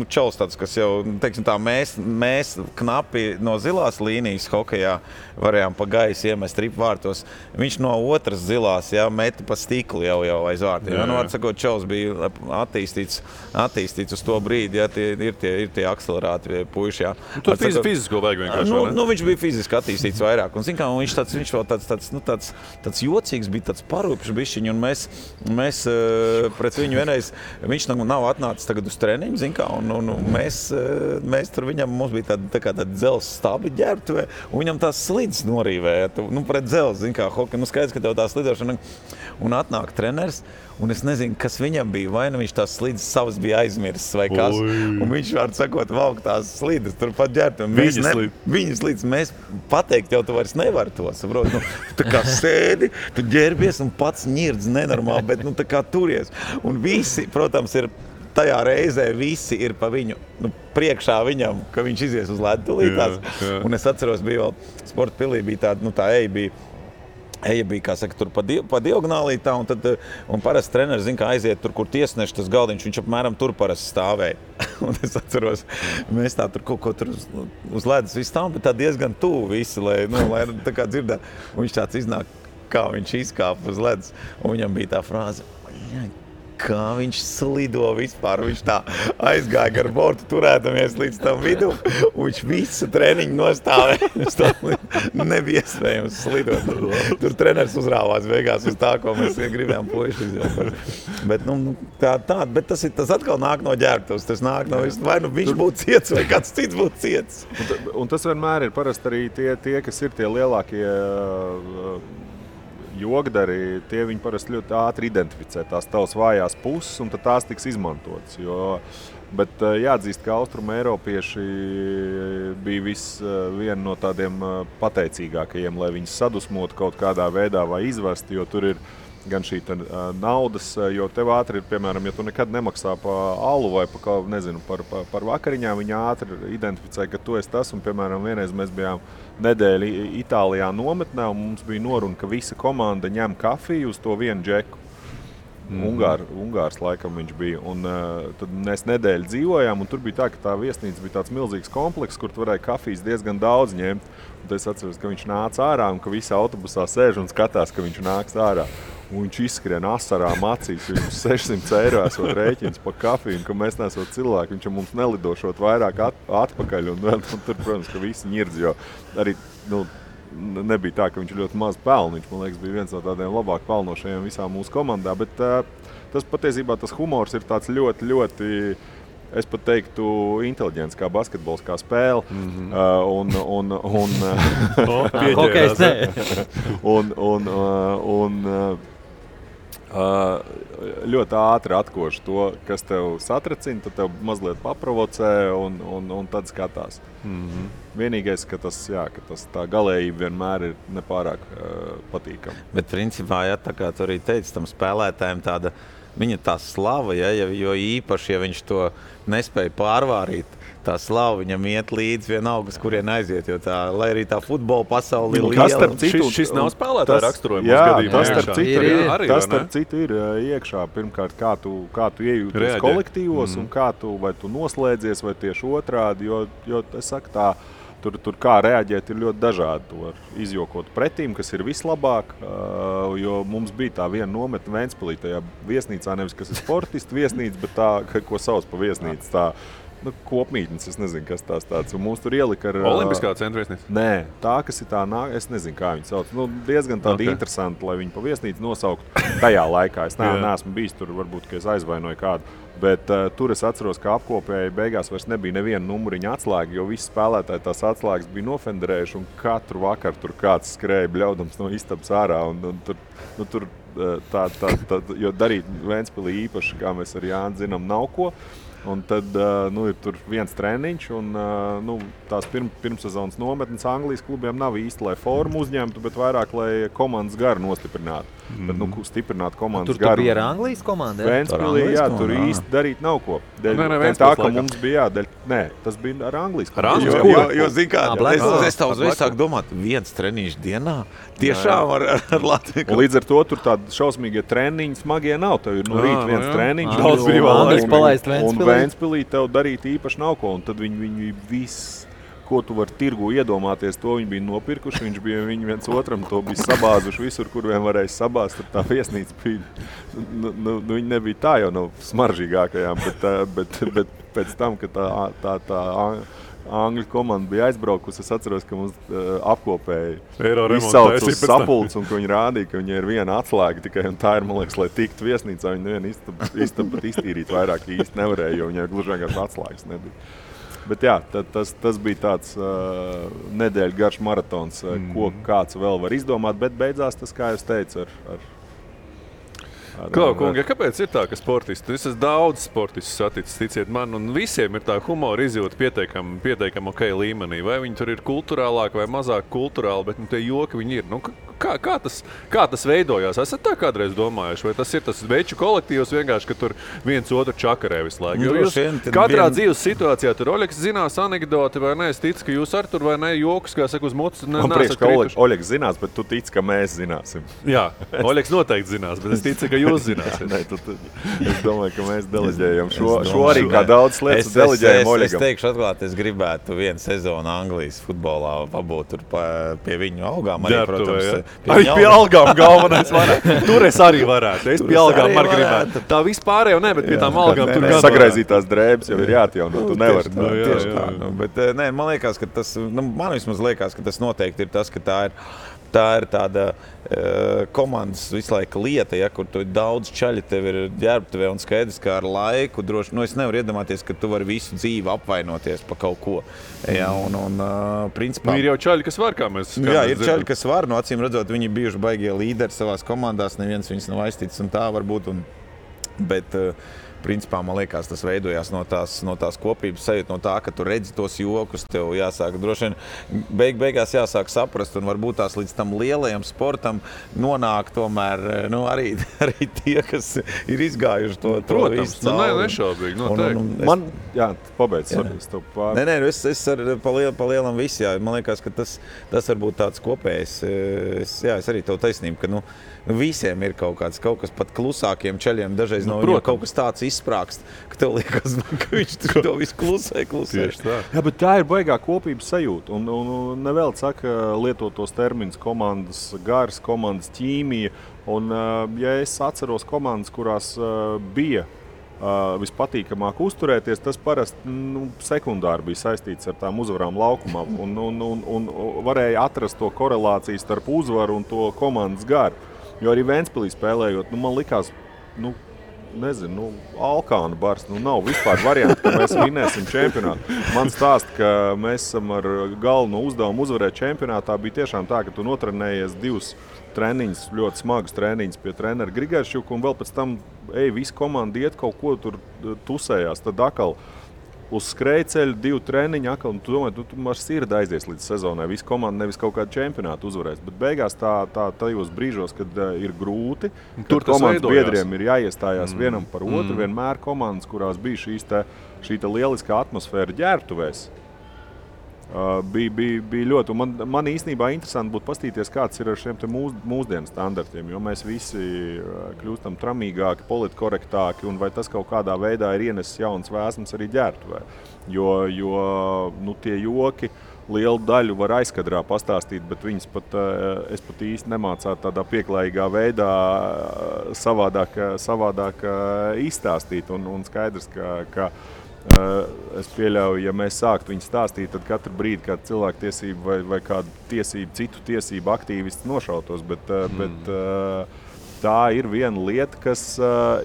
čels tāds, kas jau, teiksim tā, mēs knapi no zilās līnijas hokejā varējām pa gaisu iemest ripvārtos. Viņš no otras zilās, meti pa stiklu jau aiz vārtiem. Var sakot, čels bija attīstīts uz to brīdi, ir tie akcelerāti puiši, Tur fizisko vajag vienkārši, viņš bija fiziski attīstīts vairāk. Un, zin kā, viņš vēl tāds jocīgs bija, tāds parūpšs bišķiņ, un mēs pret viņu vienreiz, viņš nav atnācis tagad uz treniņu, zin kā, un mēs tur viņam, mums bija tāda dzelzs stabi ģērbtuvē, un viņam tās slides norīvēja, pret dzelzs, zin kā, hokeja, skaidrs, ka tev tā slidošana, un atnāk treneris, un es nezinu, kas viņam bija, vai viņš tās slides savas bija aizmirsis, vai kas, un viņš var sakot, valk tās slides, tur pat ģērbtuvē, viņa slides, mēs pateikt, jau tu vairs nevar to, saprot, tu tā kā sēdi, tu ģērbies un pats ņirdz nenormāli, bet tā kā turies, un visi, protams, ir tajā reizē visi ir pa viņu, priekšā viņam, ka viņš izies uz ledu tūlītās. Un es atceros, bija vēl sporta pilī, bija tāda, tā eja bija, kā saka, tur pa diagonālī tā, un parasti treneris zina, kā aiziet tur, kur tiesneši tas galdiņš, viņš apmēram tur parasti stāvēja. Un es atceros, mēs tā tur kaut ko tur uz ledus visu stāvam, bet tā diezgan tuvu visi, lai tā kā dzirdētu. Un viņš tāds iznāk, kā viņš izkāpa uz ledus, un viņam bija tā frāze, kā viņš slido vispār, viņš tā aizgāja gar bortu, turētamies līdz tam vidu, un viņš visu treniņu nostāvēja. Nebija iespējams slidot. Tur treneris uzrāvās beigās uz tā, ko mēs gribējām puiši izjaukt. Bet, bet tas atkal nāk no ģērbtuvs, tas nāk no vai viņš būtu ciets, vai kāds cits būtu ciets. Un tas vienmēr ir parasti arī tie kas ir tie lielākie jogdari, tie viņi parasti ļoti ātri identificē tās tavas vājās puses, un tad tās tiks izmantotas. Bet jāatzīst, ka Austrumu Eiropieši bija viena no tādiem pateicīgākajiem, lai viņus sadusmotu kaut kādā veidā vai izvest, jo tur ir gan šī naudas, jo tev ātri ir, piemēram, ja tu nekad nemaksā pa alu vai par vakariņām, viņi ātri identificē, ka tu esi tas, un, piemēram, vienreiz mēs bijām nedēļu Itālijā nometnē, un mums bija noruna, ka visa komanda ņem kafiju uz to vienu džeku. Ungārs laikam viņš bija, un tad mēs nedēļu dzīvojām, un tur bija tā, ka tā viesnīca bija tāds milzīgs komplekss, kur tu varēja kafijas diezgan daudz ņemt. Un tad es atceros, ka viņš nāca ārā, un ka visi autobusā sēž un skatās, ka viņš nāks ārā. Un viņš izskrien asarām acīs, viņš 600 eiro esot rēķins pa kafiju, un ka mēs nesot cilvēki, viņš mums nelidošot vairāk atpakaļ, un tur, protams, ka visi ņirdz, jo arī, nebija tā, ka viņš ļoti maz pelna. Viņš, man liekas, bija viens no tādiem labāk pelnošajiem visā mūsu komandā, bet tas patiesībā tas humors ir tāds ļoti, ļoti, es pat teiktu, inteliģents kā basketbols, kā spēle. Ļoti ātri atkoši to, kas tev satracina, tad tev mazliet paprovocē un tad skatās. Vienīgais, ka tā galējība vienmēr ir nepārāk patīkama. Bet principā, tā kā tu arī teici, tam spēlētājiem tāda, viņa tā slava, jo īpaši, ja viņš to nespēja pārvārīt, tā slava viņam iet līdz vienalga, uz kurien aiziet, jo lai arī tā futbola pasauli ir liela. Šis nav spēlētāja raksturojums gadījumā. Tas starp citu ir iekšā. Pirmkārt, kā tu iejūties kolektīvos un vai tu noslēdzies, vai tieši otrādi, jo es saku tā, tur kā reaģēt ir ļoti dažādi. Tu var izjokot pretīm, kas ir vislabāk, jo mums bija tā viena nometne Ventspilī tajā viesnīcā, nevis kas ir sportistu viesnīca, bet tā, ko sauc pa viesnīcu, tā kopmītnes, es nezinu, kas tās tāds. Un mūs tur ielika ar... Olimpiskā centra viesnīca? Nē, tā, kas ir tā, es nezinu, kā viņi sauc. Diezgan tādi interesanti, lai viņi pa viesnīcu nosauktu tajā laikā. Es neesmu bijis tur, varbūt, ka es aizvainoju kādu. Bet tur es atceros, ka apkopēji beigās vairs nebija neviena numuriņa atslēga, jo visi spēlētāji tās atslēgas bija nofenderējuši, un katru vakaru tur kāds skrēja bļaudams no istabas ārā. Un tur jo darīt Ventspilī īpaši, kā mēs ar Jāni zinām, nav ko. Un tad ir tur viens treniņš, un tās pirmssezonas nometnes Anglijas klubiem nav īsti, lai formu uzņemtu, bet vairāk, lai komandas garu nostiprinātu. Bet, stiprinātu komandas garu. Tur bija ar Anglijas komandu? Ventspilī, tur īsti darīt nav ko. Tā, ka mums bija tas bija ar Anglijas komandu. Jo zin kā, es tā uzreiz sāku domāt, viens treniņš dienā, tiešām ar Latviju. Un līdz ar to tur tādi šausmīgie treniņi smagie nav. Tev ir no rīt viens treniņš. Daudz brīvā palaist Ventspilī tev darīt īpaši nav ko, un tad viņi viss, ko tu vari tirgu iedomāties, to viņi bija nopirkuši, viņi viens otram to bija sabāzuši visur, kur vien varēja sabāzt, tur tā viesnīca bija, viņi nebija tā jau no smaržīgākajām, bet pēc tam, ka tā Angļu komanda bija aizbraukusi. Es atceros, ka mums apkopēji izsauc uz sapulces, un ka viņi rādīja, ka viņi ir viena atslēga tikai, un tā ir, man liekas, lai tiktu viesnīcā. Viņi nevienu istabu pat iztīrīt vairāk īsti nevarēja, jo viņai gluži vienkārši atslēgas nebija. Bet jā, tas bija tāds nedēļu garš maratons, ko kāds vēl var izdomāt, bet beidzās tas, kā jūs teicu, Kungi, kāpēc ir tā, ka sportisti? Es esmu daudz sportistus saticis, ticiet man, un visiem ir tā humora izjūta pietiekami ok līmenī. Vai viņi tur ir kulturālāk vai mazāk kulturāli, bet tie joki viņi ir. Kā tas veidojās? Esat tā kādreiz domājuši? Vai tas ir tas veču kolektīvs vienkārši, ka tur viens otru čakarē visu laiku? Jo jūs katrā dzīves situācijā tur Oļegs zinās anekdoti vai ne? Es ticu, ka jūs ar tur vai ne jokus, kā saka, uz mutes man priekš, ka Oļegs zinās, bet tu tici, ka mēs zināsim. Jā, Oļegs noteikti zinās, bet es ticu, ka jūs zināsiet. Nē, es domāju, ka mēs deleģējam šo arī kā daudz lietas deleģējam Oļegam. Es teikšu atklāt, es gribētu vienu sezonu Anglijas futbolā pabūt tur pie viņu algām. Arī, protams, Arī pie algām galvenais varētu. Tur es arī varētu. Es pie algām arī gribētu. Tā vispārējo ne, bet pie tām algām tur gan sagraizītās drēbes jau ir jāatjauno. Tu nevari. Tieši tā. Bet nē, man liekas, ka tas, man vismaz liekas, ka tas noteikti ir tas, ka tā ir tāda komandas visu laiku lieta, ja, kur tu daudz čaļi tev ir ģērbtuvē un skaidrs, kā ar laiku droši. Es nevaru iedomāties, ka tu vari visu dzīvi apvainoties pa kaut ko. Ja, un principā... Ir jau čaļi, kas var, kā mēs Jā, ir čaļi, kas var. Acīm redzot, viņi bijuši baigie līderi savās komandās, neviens viņus nav aizticis un tā varbūt. Bet... Principā, man liekas, tas veidojās no tās kopības sajūta, no tā, ka tu redzi tos jokus, tev jāsāk droši vien beigās jāsāk saprast, un varbūt tās līdz tam lielajam sportam nonāk tomēr arī tie, kas ir izgājuši to visu cauri. Nešaubīgi, noteikti. Jā, pabeidz. Nē, es pa lielam visu, jā. Man liekas, ka tas varbūt tāds kopējs, es arī tev taisnību, ka visiem ir kaut kas pat klusākiem čaļiem, dažreiz no viņiem kaut kas tāds izsprākst, ka tev liekas, ka viņš to visu klusē. Jā, bet tā ir baigā kopības sajūta. Un nevēl saka lietotos terminus komandas gars, komandas ķīmija. Un, ja es atceros komandas, kurās bija vispatīkamāk uzturēties, tas parasti sekundāri bija saistīts ar tām uzvarām laukumā. Un varēja atrast to korelāciju starp uzvaru un to komandas garu. Jo arī Ventspilī spēlējot, man likās, Alkānu bars, nav vispār varianti, ka mēs vinēsim čempionātu. Man stāsta, ka mēs esam ar galveno uzdevumu uzvarēt čempionātā. Bija tiešām tā, ka tu notrenējies 2 treniņus, ļoti smagus treniņus pie trenera Grigāršķuka, un vēl pēc tam, visa komanda iet kaut ko tur tusējās, tad atkal uz skrejceļu 2 treniņi, un tu domā, tu ar sirdi aizies līdz sezonai. Visa komanda nevis kaut kādu čempionātu uzvarēs, bet beigās tajos brīžos, kad ir grūti, tur komandas biedriem ir jāiestājās vienam par otru, vienmēr komandas, kurās bija šī lieliskā atmosfēra ģērbtuvēs. Bija ļoti, un man īstenībā interesanti būtu pastīties, kāds ir ar šiem te mūsdienu standartiem, jo mēs visi kļūstam tramīgāki, politkorektāki, un vai tas kaut kādā veidā ir ienesis jaunas vēsmas arī ģērbtuvē. Jo tie joki lielu daļu var aizkadrā pastāstīt, bet viņas es pat īsti nemācētu tādā pieklājīgā veidā savādāk izstāstīt, un skaidrs, ka es pieļauju, ja mēs sāktu viņu stāstīt, tad katru brīdi kādu cilvēktiesību vai kādu citu tiesību aktīvistu nošautos, bet tā ir viena lieta, kas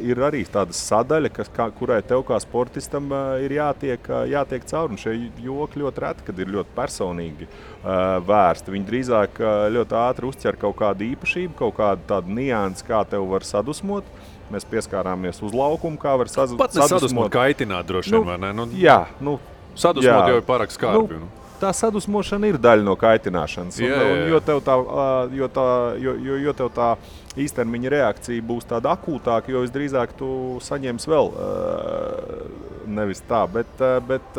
ir arī tāda sadaļa, kurai tev kā sportistam ir jātiek cauri. Un šie joki ļoti reti, kad ir ļoti personīgi vērsti. Viņi drīzāk ļoti ātri uzķer kaut kādu īpašību, kaut kādu tādu niansi, kā tev var sadusmot. Mēs pieskārāmies uz laukumu, kā var sadusmot. Pat nesadusmot kaitināt droši vien, vai ne? Jā. Sadusmot jau ir pārāk skarbi. Tā sadusmošana ir daļa no kaitināšanas. Jo tev tā īstermiņa reakcija būs tāda akūtāka, jo visdrīzāk tu saņemsi vēl nevis tā. Bet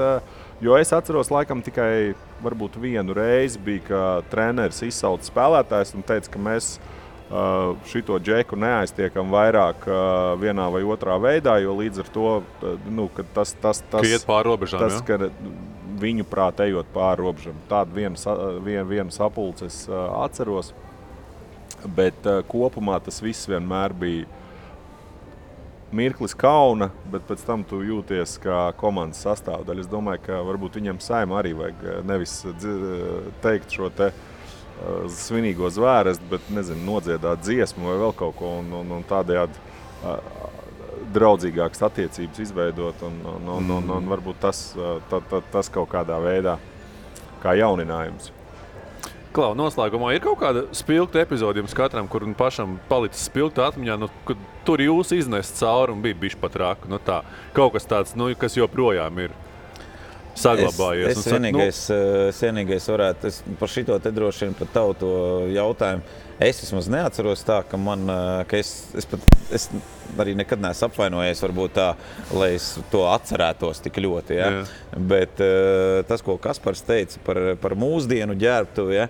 jo es atceros laikam tikai varbūt vienu reizi bija, ka treneris izsauca spēlētājs un teica, ka mēs šito džeku neaiztiekam vairāk vienā vai otrā veidā, jo līdz ar to, ka tas iet pāri robežām, ka viņu prāt ejot pāri robežām. Tādu vienu sapulci es atceros, bet kopumā tas viss vienmēr bija mirklis kauna, bet pēc tam tu jūties kā komandas sastāvdaļa. Es domāju, ka varbūt viņam Saimam arī vajag nevis teikt šo te svinīgo zvērestu, bet, nezinu, nodziedāt dziesmu vai vēl kaut ko un tādējādi draudzīgākas attiecības izveidot un varbūt tas kaut kādā veidā kā jauninājums. Klau, noslēgumā ir kaut kāda spilgta epizode jums katram, kur pašam palicis spilgta atmiņā, kad tur jūs iznest cauri un bija bišķi pat raka. Tā, kaut kas tāds, kas joprojām ir saglabājies. Es vienīgais varētu, par šito te droši vien par tavu to jautājumu, es vismaz neatceros tā, ka es arī nekad neesmu apvainojies, varbūt tā, lai es to atcerētos tik ļoti. Ja? Bet tas, ko Kaspars teica par mūsdienu ģērbtuvi, ja?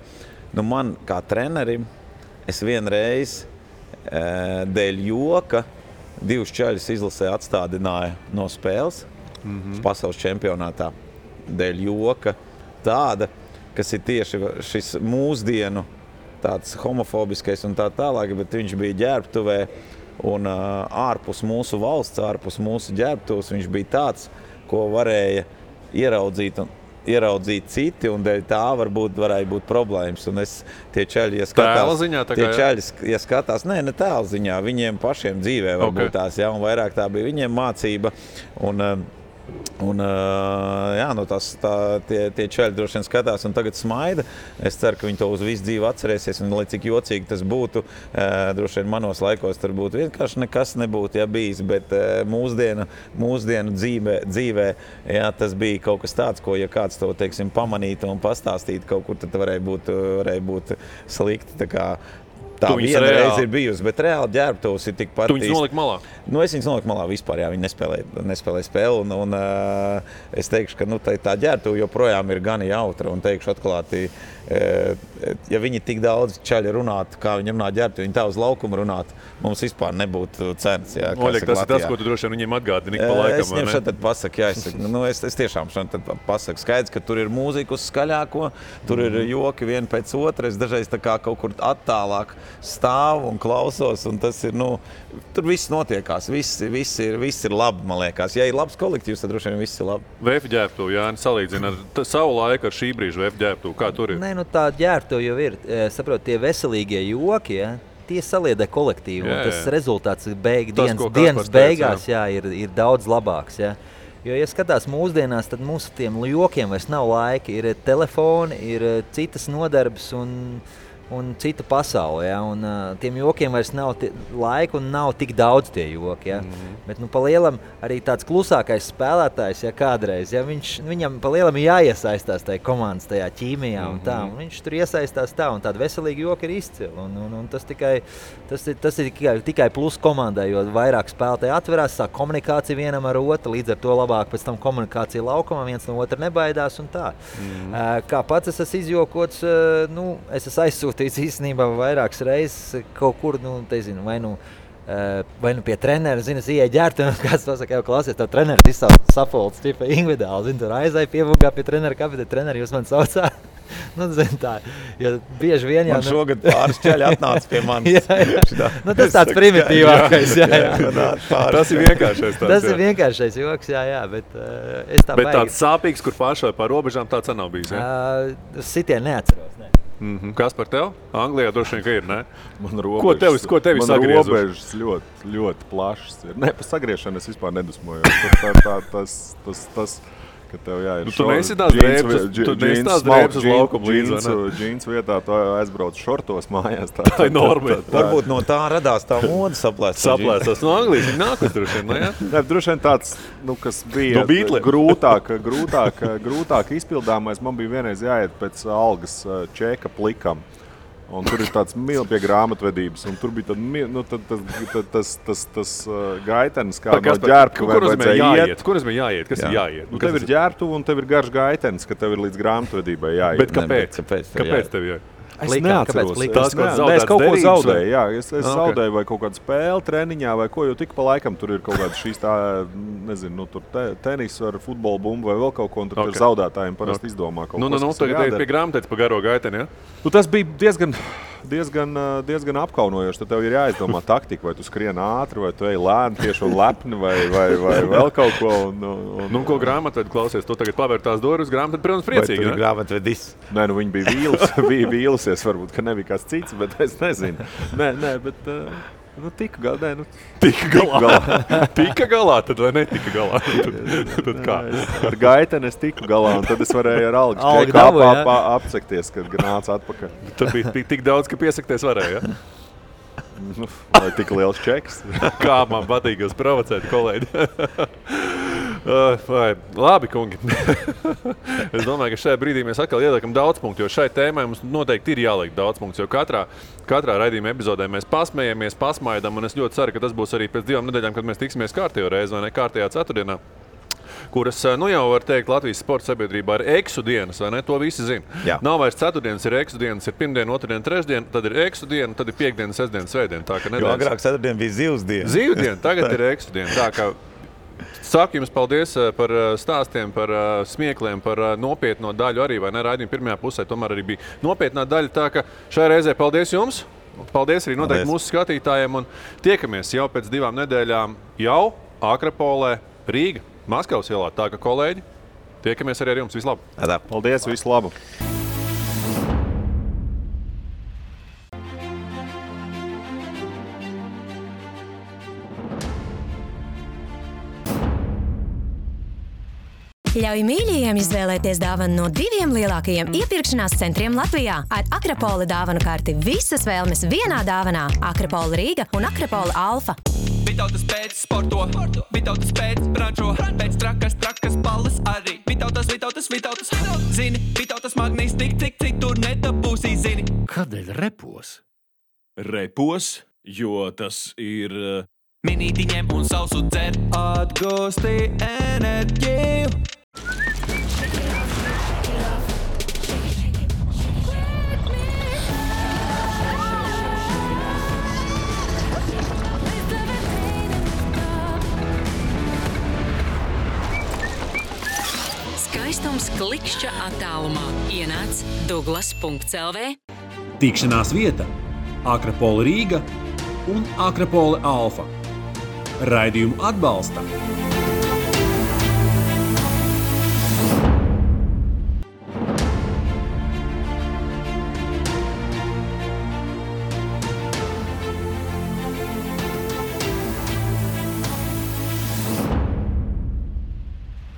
Man kā trenerim, es vienreiz dēļ joka 2 čaļus izlasē atstādināja no spēles pasaules čempionātā. Dēļ joka tāda, kas ir tieši šis mūsdienu tāds homofobiskais un tā tālāk, bet viņš bija ģērbtuvē un ārpus mūsu valsts, ārpus mūsu ģērbtuves, viņš bija tāds, ko varēja ieraudzīt citi, un dēļ tā varēja būt problēmas. Un tie čaļi, ja skatās, ne tēla ziņā, viņiem pašiem dzīvē varbūt tās, ja, un vairāk tā bija viņiem mācība. Tie čaļi droši vien skatās un tagad smaida. Es ceru, ka viņi to uz visu dzīvi atcerēsies, un lai cik jocīgi tas būtu, droši vien manos laikos tur būtu vienkārši nekas nebūtu, ja bijis, bet mūsdienu dzīvē, jā, tas bija kaut kas tāds, ko, ja kāds to, teiksim, pamanītu un pastāstītu kaut kur, tad varēja būt slikti, tā kā tā viena reize ir bijusi, bet reāli ģērbtuvs ir tikpat. Tu viņus noliki malā? Es viņus noliku malā vispār, jā, viņi nespēlēja spēli, un es teikšu, ka tā ģērbtuve joprojām ir gan jautra, un teikšu atklāti, ja viņi tik daudz čaļi runātu, kā viņi runā ģērbtuvi, viņi tā uz laukumu runātu, mums vispār nebūtu cenas. Jā, Oļek, tas ir tas, ko tu droši vien viņiem atgādini pa laikam, es viņiem šeit pasaku, jā, es tiešām šeit pasaku. Skaidrs, ka tur ir mūzika uz skaļāko, tur ir joki vien pēc otra, es dažreiz tā kā kaut kur attālāk stāvu un klausos, un tas ir, tur viss notiekās, viss ir labi, man liekas. Ja ir labs kolektīvs, tad droši vien viss ir labi. VF ģērbtuve, Jāni, salīdzina ar savu laiku ar šī brīža VF ģērbtuve, kā tur ir? Nē, tā ģērbtuve jau ir, saprot, tie veselīgie joki, ja, tie saliedē kolektīvu, un tas rezultāts dienas beigās, jā, ir daudz labāks, jā. Jo, ja skatās mūsdienās, tad mūsu tiem jokiem vairs nav laika, ir telefoni, ir citas nodarbes un cita pasaule, ja? Un tiem jokiem vairs nav laika un nav tik daudz tie joki. Ja? Bet pa lielam arī tāds klusākais spēlētājs, ja kādreiz, ja? Viņam pa lielam ir jāiesaistās tajā komandas, tajā ķīmijā un tā. Un viņš tur iesaistās tā, un tāda veselīga joka ir izcila. Un tas ir tikai plus komandai, jo vairāk spēlētāji atverās, sāk komunikācija vienam ar otru, līdz ar to labāk pēc tam komunikācija laukumā, viens no otra nebaidās un tā. Kā pats es esmu izjokots, es esmu aizsūtījis īstenībā vairākas reizes kaut kur, vai pie trenera, es ieeju ģērbtuvē, un kāds to saka, jau klausies, tev treneris izsauc sapulces, tipa individuāli, tur aizēju pievugā pie trenera, kāpēc treneri jūs man saucā? Tā, jo bieži vien jau... Man šogad pāris čaļi atnāca pie manis. Tas tāds primitīvākais, Tas ir vienkāršais tāds. Tas ir vienkāršais joks, jā, bet es tā bet tāds sāpīgs, kur pāršai pār robežām, tāds nav bijis, Sitien neatceros, ne. Kas par tev? Anglijā droši vien, ka ir, ne? Man robežas, ko tevi sagriezuši? Man robežas ļoti, ļoti plašas ir. Ne, par sagriešanu es vispār nedusmoju. Tas, ka tev jāir tu neesi tās drēbes uz laukumu līdz, vai ne? Džīns vietā tu aizbrauc šortos mājās. Tā ir norma. Varbūt no tā radās tā moda saplēstas. Saplēstas no Anglijas, viņi nākas droši vien, ne? Ne, droši vien tāds, kas bija grūtāk izpildāmais, man bija vienreiz jāiet pēc algas čeka plikam. Un tur ir tāds pie grāmatvedības, un tur bija tas gaitenis, kā no ģērbtuve vajadzēja iet. Kur es biju jāiet? Kas ir jāiet? Tev ir ģērbtuve un tev ir garš gaitenis, ka tev ir līdz grāmatvedībai jāiet. Bet kāpēc? Kāpēc tev jāiet? Es neatceros. Es kaut ko zaudēju, jā. Es zaudēju vai kaut kādu spēli treniņā vai ko, jo tik pa laikam tur ir kaut kāda šīs tā, nezinu, tur tenis ar futbola bumbu vai vēl kaut ko, un tur zaudētājiem parasti izdomā kaut ko. Tagad ir pie grāmatētas pa garo gaiteni, ja? Tas bija diezgan diezgan apkaunojoši. Tad tev ir jāizdomā taktika, vai tu skrien ātri, vai tu ej lēni tieši un lepni, vai vēl kaut ko. Nu, ko grāmatvedi klausies? Tu tagad pavēr tās durvis, grāmatvedi, protams, priecīgi. Vai tu ir grāmatvedis? Nē, nu viņi bija vīlusies, varbūt, ka nebija kāds cits, bet es nezinu. Nē, bet... tika galā. Tika galā, tad vai netika galā? Tad kā? Ar gaiteni es tiku galā, un tad es varēju ar algu čeku apsekties, kad nāca atpakaļ. Tad bija tik daudz, ka piesakties varēja, ja? Vai tik liels čeks? Kā man patīk jūs provocēt, kolēģi. Labi, kungi. Es domāju, ka šajā brīdī mēs atkal ieliekam daudz punktu, jo šai tēmai mums noteikti ir jāliek daudz punktu, jo katrā raidījuma epizodē mēs pasmējamies, pasmaidam, un es ļoti ceru, ka tas būs arī pēc 2 nedēļām, kad mēs tiksimies kārtējo reizi vai ne kārtējā ceturtdienā, kuras, jau var teikt, Latvijas sporta sabiedrībā ir eksu dienas, vai ne? To visi zina. Jā. Nav vairs ceturtdienas, ir eksu dienas, ir pirmdiena, otrdiena, trešdiena, tad ir eksu diena, tad ir piekdiena, sestdiena, svētdiena. Tā, jo agrāk ceturtdiena bija zivs diena. Zivdiena, tagad ir eksu diena. Tā kā saku jums paldies par stāstiem, par smiekliem, par nopietno daļu arī, vai ne? Raidījuma pirmajā pusē tomēr arī bija nopietnā daļa, tā ka šajā reizē paldies jums. Paldies arī noteikti mūsu skatītājiem un tiekamies jau pēc 2 nedēļām jau Akrapolē, Rīga, Maskavas ielā. Tā ka, kolēģi, tiekamies arī ar jums. Visu labu! Paldies, visu labu! Ļauj mīļajiem izvēlēties dāvanu no 2 lielākajiem iepirkšanās centriem Latvijā. Ar Akrapola dāvanu karti visas vēlmes vienā dāvanā. Akrapola Rīga un Akrapola Alfa. Vitautas pēc sporto, Vitautas pēc brančo, pēc trakas balles arī. Vitautas, zini, Vitautas magnīs tik tur nedabūsī, zini. Kādēļ repos? Repos, jo tas ir... Minīti ņem un sausu dzer, atgūsti enerģiju. Skaistums klikšķa attālumā. Ienāc Douglas.lv. Tikšanās vieta Akrapola Rīga un Akrapola Alfa. Raidījumu atbalsta